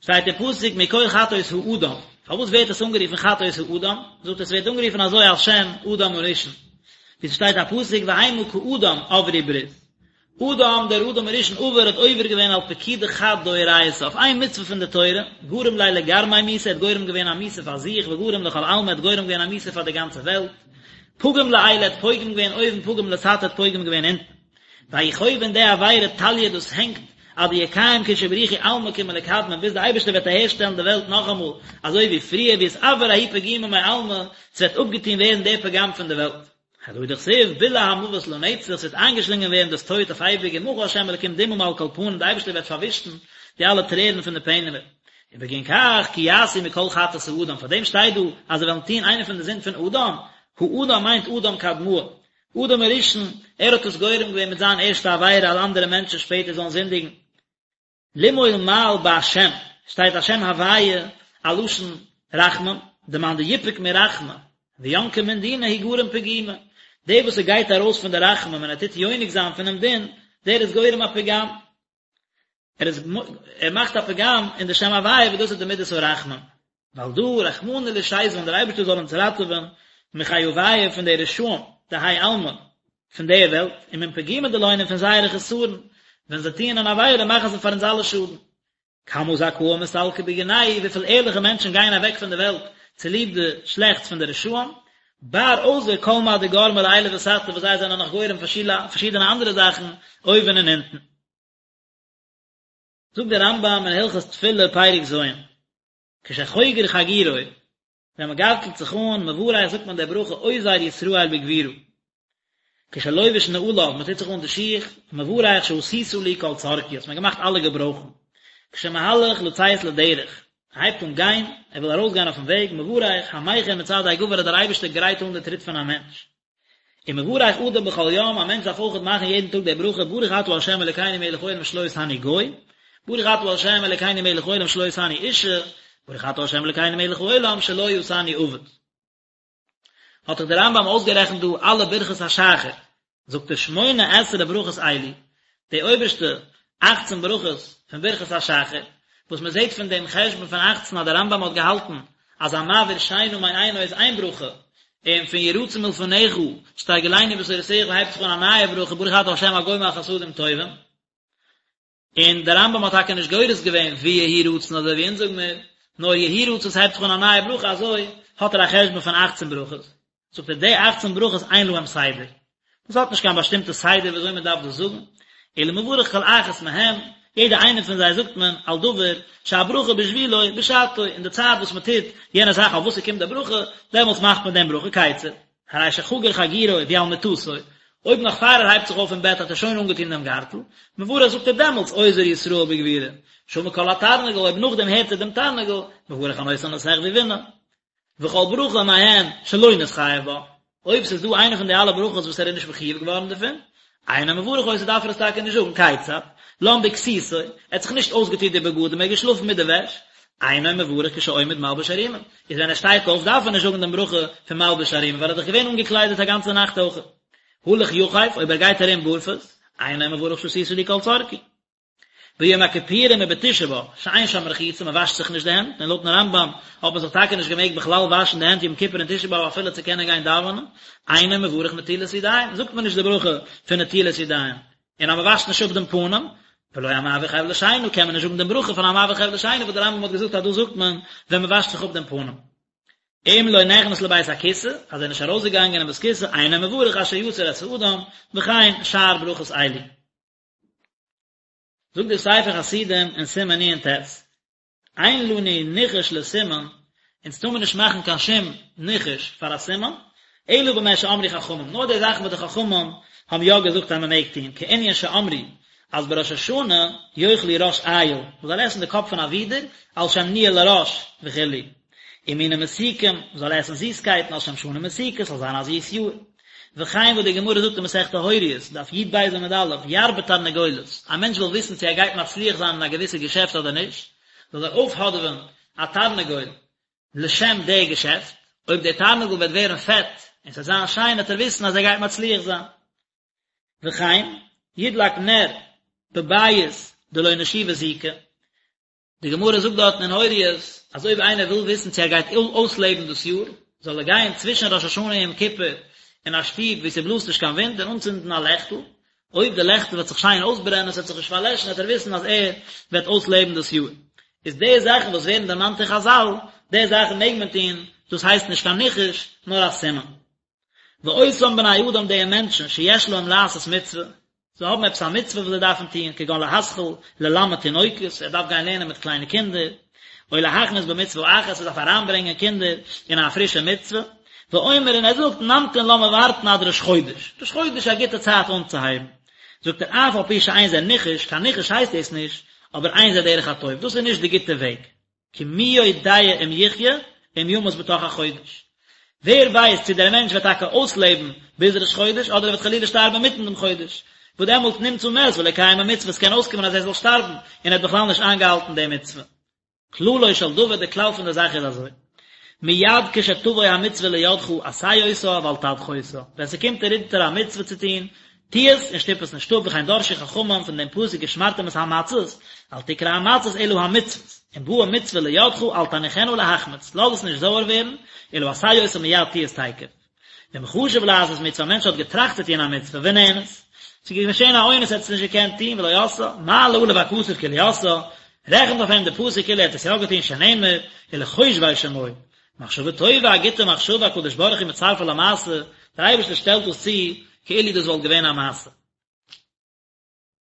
שטייט אין פסוק מכל חטאות האדם, פארוואס ווערט עס אנגערופן חטאות האדם? זאגט ער עס ווערט אנגערופן אזוי על שם אדם הראשון, ווי ס'שטייט א פסוק והמה כאדם עברו ברית, אדם, דער אדם הראשון עבר האט עובר געווען על פקודא חד דאורייתא, אויף איין מצוה פון די תורה, גרים ליה לגרמיה מיתה, ער האט גורם געווען א מיתה פאר זיך, וגרים לכל עלמא, ער האט גורם געווען א מיתה פאר די גאנצע וועלט, פגים לעילא, ער האט פוגם געווען אויבן, פגים לתתא, ער האט פוגם געווען אונטן. וההוא חובא און די עבירה תליא דאס הענגט, עד דיקיים קודשא בריך הוא עלמא כמלקדמין, ביז די אייבערשטער וועט אהערשטעלן די וועלט נאכאמאל אזוי ווי פריער, ואתעבר ההוא פגימא מעלמא, ס'וועט אפגעטון ווערן דער פגם פון די וועלט. הדא הוא דכתיב בלע המוות לנצח, ס'וועט איינגעשלינגען ווערן דאס טויט אויף אייביג ומחה ה' אלקים דמעה מעל כל פנים, די אייבערשטער וועט פארווישן די אלע טרערן פון די פענעמער. ובגין כך כי יעשו מכל חטאת האדם, פאר דעם שטייט דא אז זיי וועלן טון איינע פון די זינד פון אדם, האדם מיינט אדם קדמאה, אדם הראשון, ער האט עס גורם געווען מיט זיין ערשטע עבירה אז אנדערע מענטשן שפעטער זאלן זינדיגן. למעול מעל בהשם, שטייט השם הוויה א לשון רחמים, דמאן דיפוק מרחמי וינקא מן דינא הוא גרים פגימא, דער וואס ער גייט ארויס פון די רחמים און ער טוט יונק זיין פונעם דין, דער איז גורם א פגם, ער איז ער מאכט א פגם אין די שם הוויה וואס דאס איז די מידת הרחמים. ועל דא רחמנא לישזבן דער אייבערשטער זאל אונז ראטעווען מחייביא פון די רשעים דהאי עלמא פון די וועלט ומן פגימא דלהון און פון זייערע חסרון ווען זיי טוען אן עבירה מאכן זיי פאר אונז אלע שאדן. כמה זכאין מסתלקי בגינייהו וויפיל ערליכע מענטשן גייען אוועק פון די וועלט צוליב די שלעכטס פון די רשעים, בר אויסער כל מה דגרמי לעילא ותתא וואס זיי זענען נאך גורם פארשידענע אנדערע זאכן אויבן און אונטן. זאגט דער רמב"ם אין הלכות תפילה פרק ז', כשחוגר חגורו, ווען מען גארטלט זיך אן, מברך זאגט מען די ברכה אוזר ישראל בגבורה. כשלובש נעליו, מען טוט זיך אן די שיך, מברך שעשית לי כל צרכי, האסט מיר געמאכט אלע געברויכן. כשמהלך לצאת לדרך, ער הייבט אן גיין, ער וויל ארויסגיין אויפן וועג, מברך, המכין מצעדי גבר אז דער אייבערשטער גרייט אן די טריט פון א מענטש. ומברך אדם בכל יום, א מענטש דארף אויכעט מאכן יעדן טאג די ברכה, ברוך אתה ה' אלוקינו מלך העולם שלא עשני גוי, ברוך אתה ה' אלוקינו מלך העולם שלא עשני אישה, ברוך אתה ה' אלוקינו מלך העולם שלא עשני עבד. האט דאך דער רמב"ם אויסגערעכנט דא אלע ברכות השחר, זאגט ער שמונה עשרה ברכות אלו, די אויבערשטע אכצן ברכות פון ברכות השחר, וואס מען זעט פון דעם חשבון פון אכצן אז דער רמב"ם האט געהאלטן אז המעביר שינה מעינו איז איין ברכה, און פון יהי רצון מלפניך שתרגילנו בתורתך הייבט זיך אן א נייע ברכה ברוך אתה ה' הגומל חסדים טובים. און דער רמב"ם האט טאקע נישט גורס געווען ויהי רצון אזוי ווי אונז זאג מיר, נאר יהי רצון ס'הייבט זיך אן א נייע ברכה אזוי האט ער א חשבון פון אכצן ברכות, זאגט ער די אכצן ברכות אין להם סדר, דאס האט נישט קיין באשטימטע סדר ווי אזוי מען דארף דאס זאגן, אלא מברך כל אחת מהם, יעדע איינע פון זיי זאגט מען על דבר שהברכה בשבילו בשעתו, אין די צייט וואס מען טוט יענע זאך אויף וואס ס'קומט די ברכה, דעמאלטס מאכט מען דעם ברכה, כיצד? הרי שחגר חגורו והוא על מיטתו, אויב נאך פאר ער הייבט זיך אויף פון בעט האט ער שוין אנגעטון דעם גארטל, מברך זאגט ער דעמאלטס אוזר ישראל בגבורה, שמע קול התרנגול, אויב נאכדעם הערט ער דעם תרנגול, מברך הנותן לשכוי בינה. וכל ברכה מהן שלא נתחייב בה, אויב ס'איז דא איינע פון די אלע ברכות וואס ער איז נישט מחויב געווארן דערפון, אינו מברך אותה דארף ער עס טאקע נישט זאגן, כיצד? לן בכסותו, ער האט זיך נישט אויסגעטון די בגדים, ער איז געשלאפן מיט די וועש, אינו מברך כשעומד מלבוש ערומים, איז ווען ער שטייט אויף דארף ער נישט זאגן דעם ברכה פון מלבוש ערומים ווייל ער איז דאך געווען אנגעקליידעט א גאנצע נאכט אויך. הלך יחף, אויב ער גייט ארום בארפוס, אינו מברך שעשית לי כל צרכי. ביום הכיפורים ובתשעה באב, שאין שם רחיצה, מען וואשט זיך נישט די הענט, און לויטן רמב"ם האט מען זיך טאקע נישט געמעגט בכלל וואשן די הענט יום כיפור און תשעה באב אפילו צו קענען גיין דאווענען, אינו מברך נטילת ידיים, זאגט מען נישט די ברכה פון נטילת ידיים, און אז מען וואשט נישט אפ דעם פנים, ולא המעביר חבלי שינה, קען מען נישט זאגן דעם ברכה פון המעביר חבלי שינה וואס דער רמב"ם האט געזאגט אז דאס זאגט מען ווען מען וואשט זיך אפ דעם פנים. אם לא נכנס לבית הכסא, אז ער איז נישט ארויסגעגאנגען אין בית כסא, אינו מברך אשר יצר את האדם, וכן שאר ברכות אלו. זאגט דער ספר חסידים אין סימן נ"ט, אין לנו ניחוש לסימן, אונז טאר מען נישט מאכן קיין שום ניחוש פאר א סימן, אלא במה שאמרו חכמים, נאר די זאכן וואס די חכמים האבן יא געזאגט אז מען מעג טון, כענין שאמרו אז בראש השנה יאכלו ראש איל, מען זאל עסן די קאפ פון א ווידער, על שם ניהול הראש וכו', ומינים מתוקים, מען זאל עסן זיסקייטן על שם שנה מתוקה, ס'זאל זיין א זיס יאר. וכן וואס די גמרא זאגט אין מסכת הוריות, דף י"ב עמוד א', ירבה תרנגולת, א מענטש וויל וויסן צו ער גייט מצליח זיין אין א געוויסע געשעפט אדער נישט, זאל ער אויפהאדעווען א תרנגול לשם די געשעפט, אויב דער תרנגול וועט ווערן פעט און ס'וועט זיין שיין וועט ער וויסן אז ער גייט מצליח זיין. וכן, ידלק נר בבית דלא נשיבא זיקא, די גמרא זאגט דארטן אין הוריות אז אויב איינער וויל וויסן צו ער גייט אויסלעבן דאס יאר, זאל ער גיין צווישן ראש השנה און יום כיפור אין א שטוב וואו ס'בלאזט נישט קיין ווינט און אנצינדן א לעכטל, אויב די לעכטל וועט זיך שיין אויסברענען, ס'וועט זיך נישט פארלעשן, וועט ער וויסן אז ער וועט אויסלעבן דאס יאר. איז די זאכן וואס ווערן דערמאנט אין חזל, די זאכן מעג מען טון, דאס הייסט נישט קיין ניחוש, נאר א סימן. ואותם בני אדם די מענטשן שיש להם לעשות מצוה, זיי האבן עפעס א מצוה וואס זיי דארפן טון, כגון להתחיל ללמד תינוקות, ער דארף גיין לערנען מיט קליינע קינדער, או להכניס במצוה אחת, ער דארף אריינברענגען קינדער אין א פרישע מצוה, ואומר און ער זאגט, נמתין לאמיר ווארטן עד ראש חודש, ראש חודש איז א גוטע צייט אנצוהייבן, זאגט ער אף על פי שאין זה ניחוש, קיין ניחוש הייסט דאס נישט, אבער אין זה דרך הטוב, דאס איז נישט די גוטע וועג. כי מי יודע אם יחיה אם ימות בתוך החודש. ווער ווייסט צו דער מענטש וועט טאקע אויסלעבן ביז ראש חודש אדער ער וועט חלילה שטארבן אינמיטן דעם חודש, וואס דעמאלט נמצא מת ולא קיים המצוה, עס קען אויסקומען אז ער זאל שטארבן און ער האט בכלל נישט איינגעהאלטן די מצוה. כללו של דבר, די כלל פון די זאך איז אזוי, מיד כשתבוא המצוה לידך עשה אותה ואל תדחה אותה, ווען ס'קומט דיר אונטער א מצוה צו טון, טו עס און שטופ עס נישט אפ, וכן דרשו חכמים פון דעם פסוק ושמרתם את המצות, אל תקרא המצות אלא המצוות, אם באה מצוה לידך אל תניחנה להחמיץ, לאז עס נישט זויער ווערן, אלא עשה אותה מיד טו עס תיכף. ואם חשב לעשות מצוה, א מענטש האט געטראכט צו טון א מצוה, ונאנס, ס'איז געשען א אונס ער האט עס נישט געקענט טון, ולא עשאה, מעלה עליו הכתוב כאילו עשאה, רעכנט אויף אים די פסוק כאילו ער האט עס יא געטון שנאמר, ולחושבי שמו, מחשבה טובה, א גוטע מחשבה, הקדוש ברוך הוא מצרפה למעשה, דער אייבערשטער שטעלט דאס צו כאילו דאס וואלט געווען א מעשה.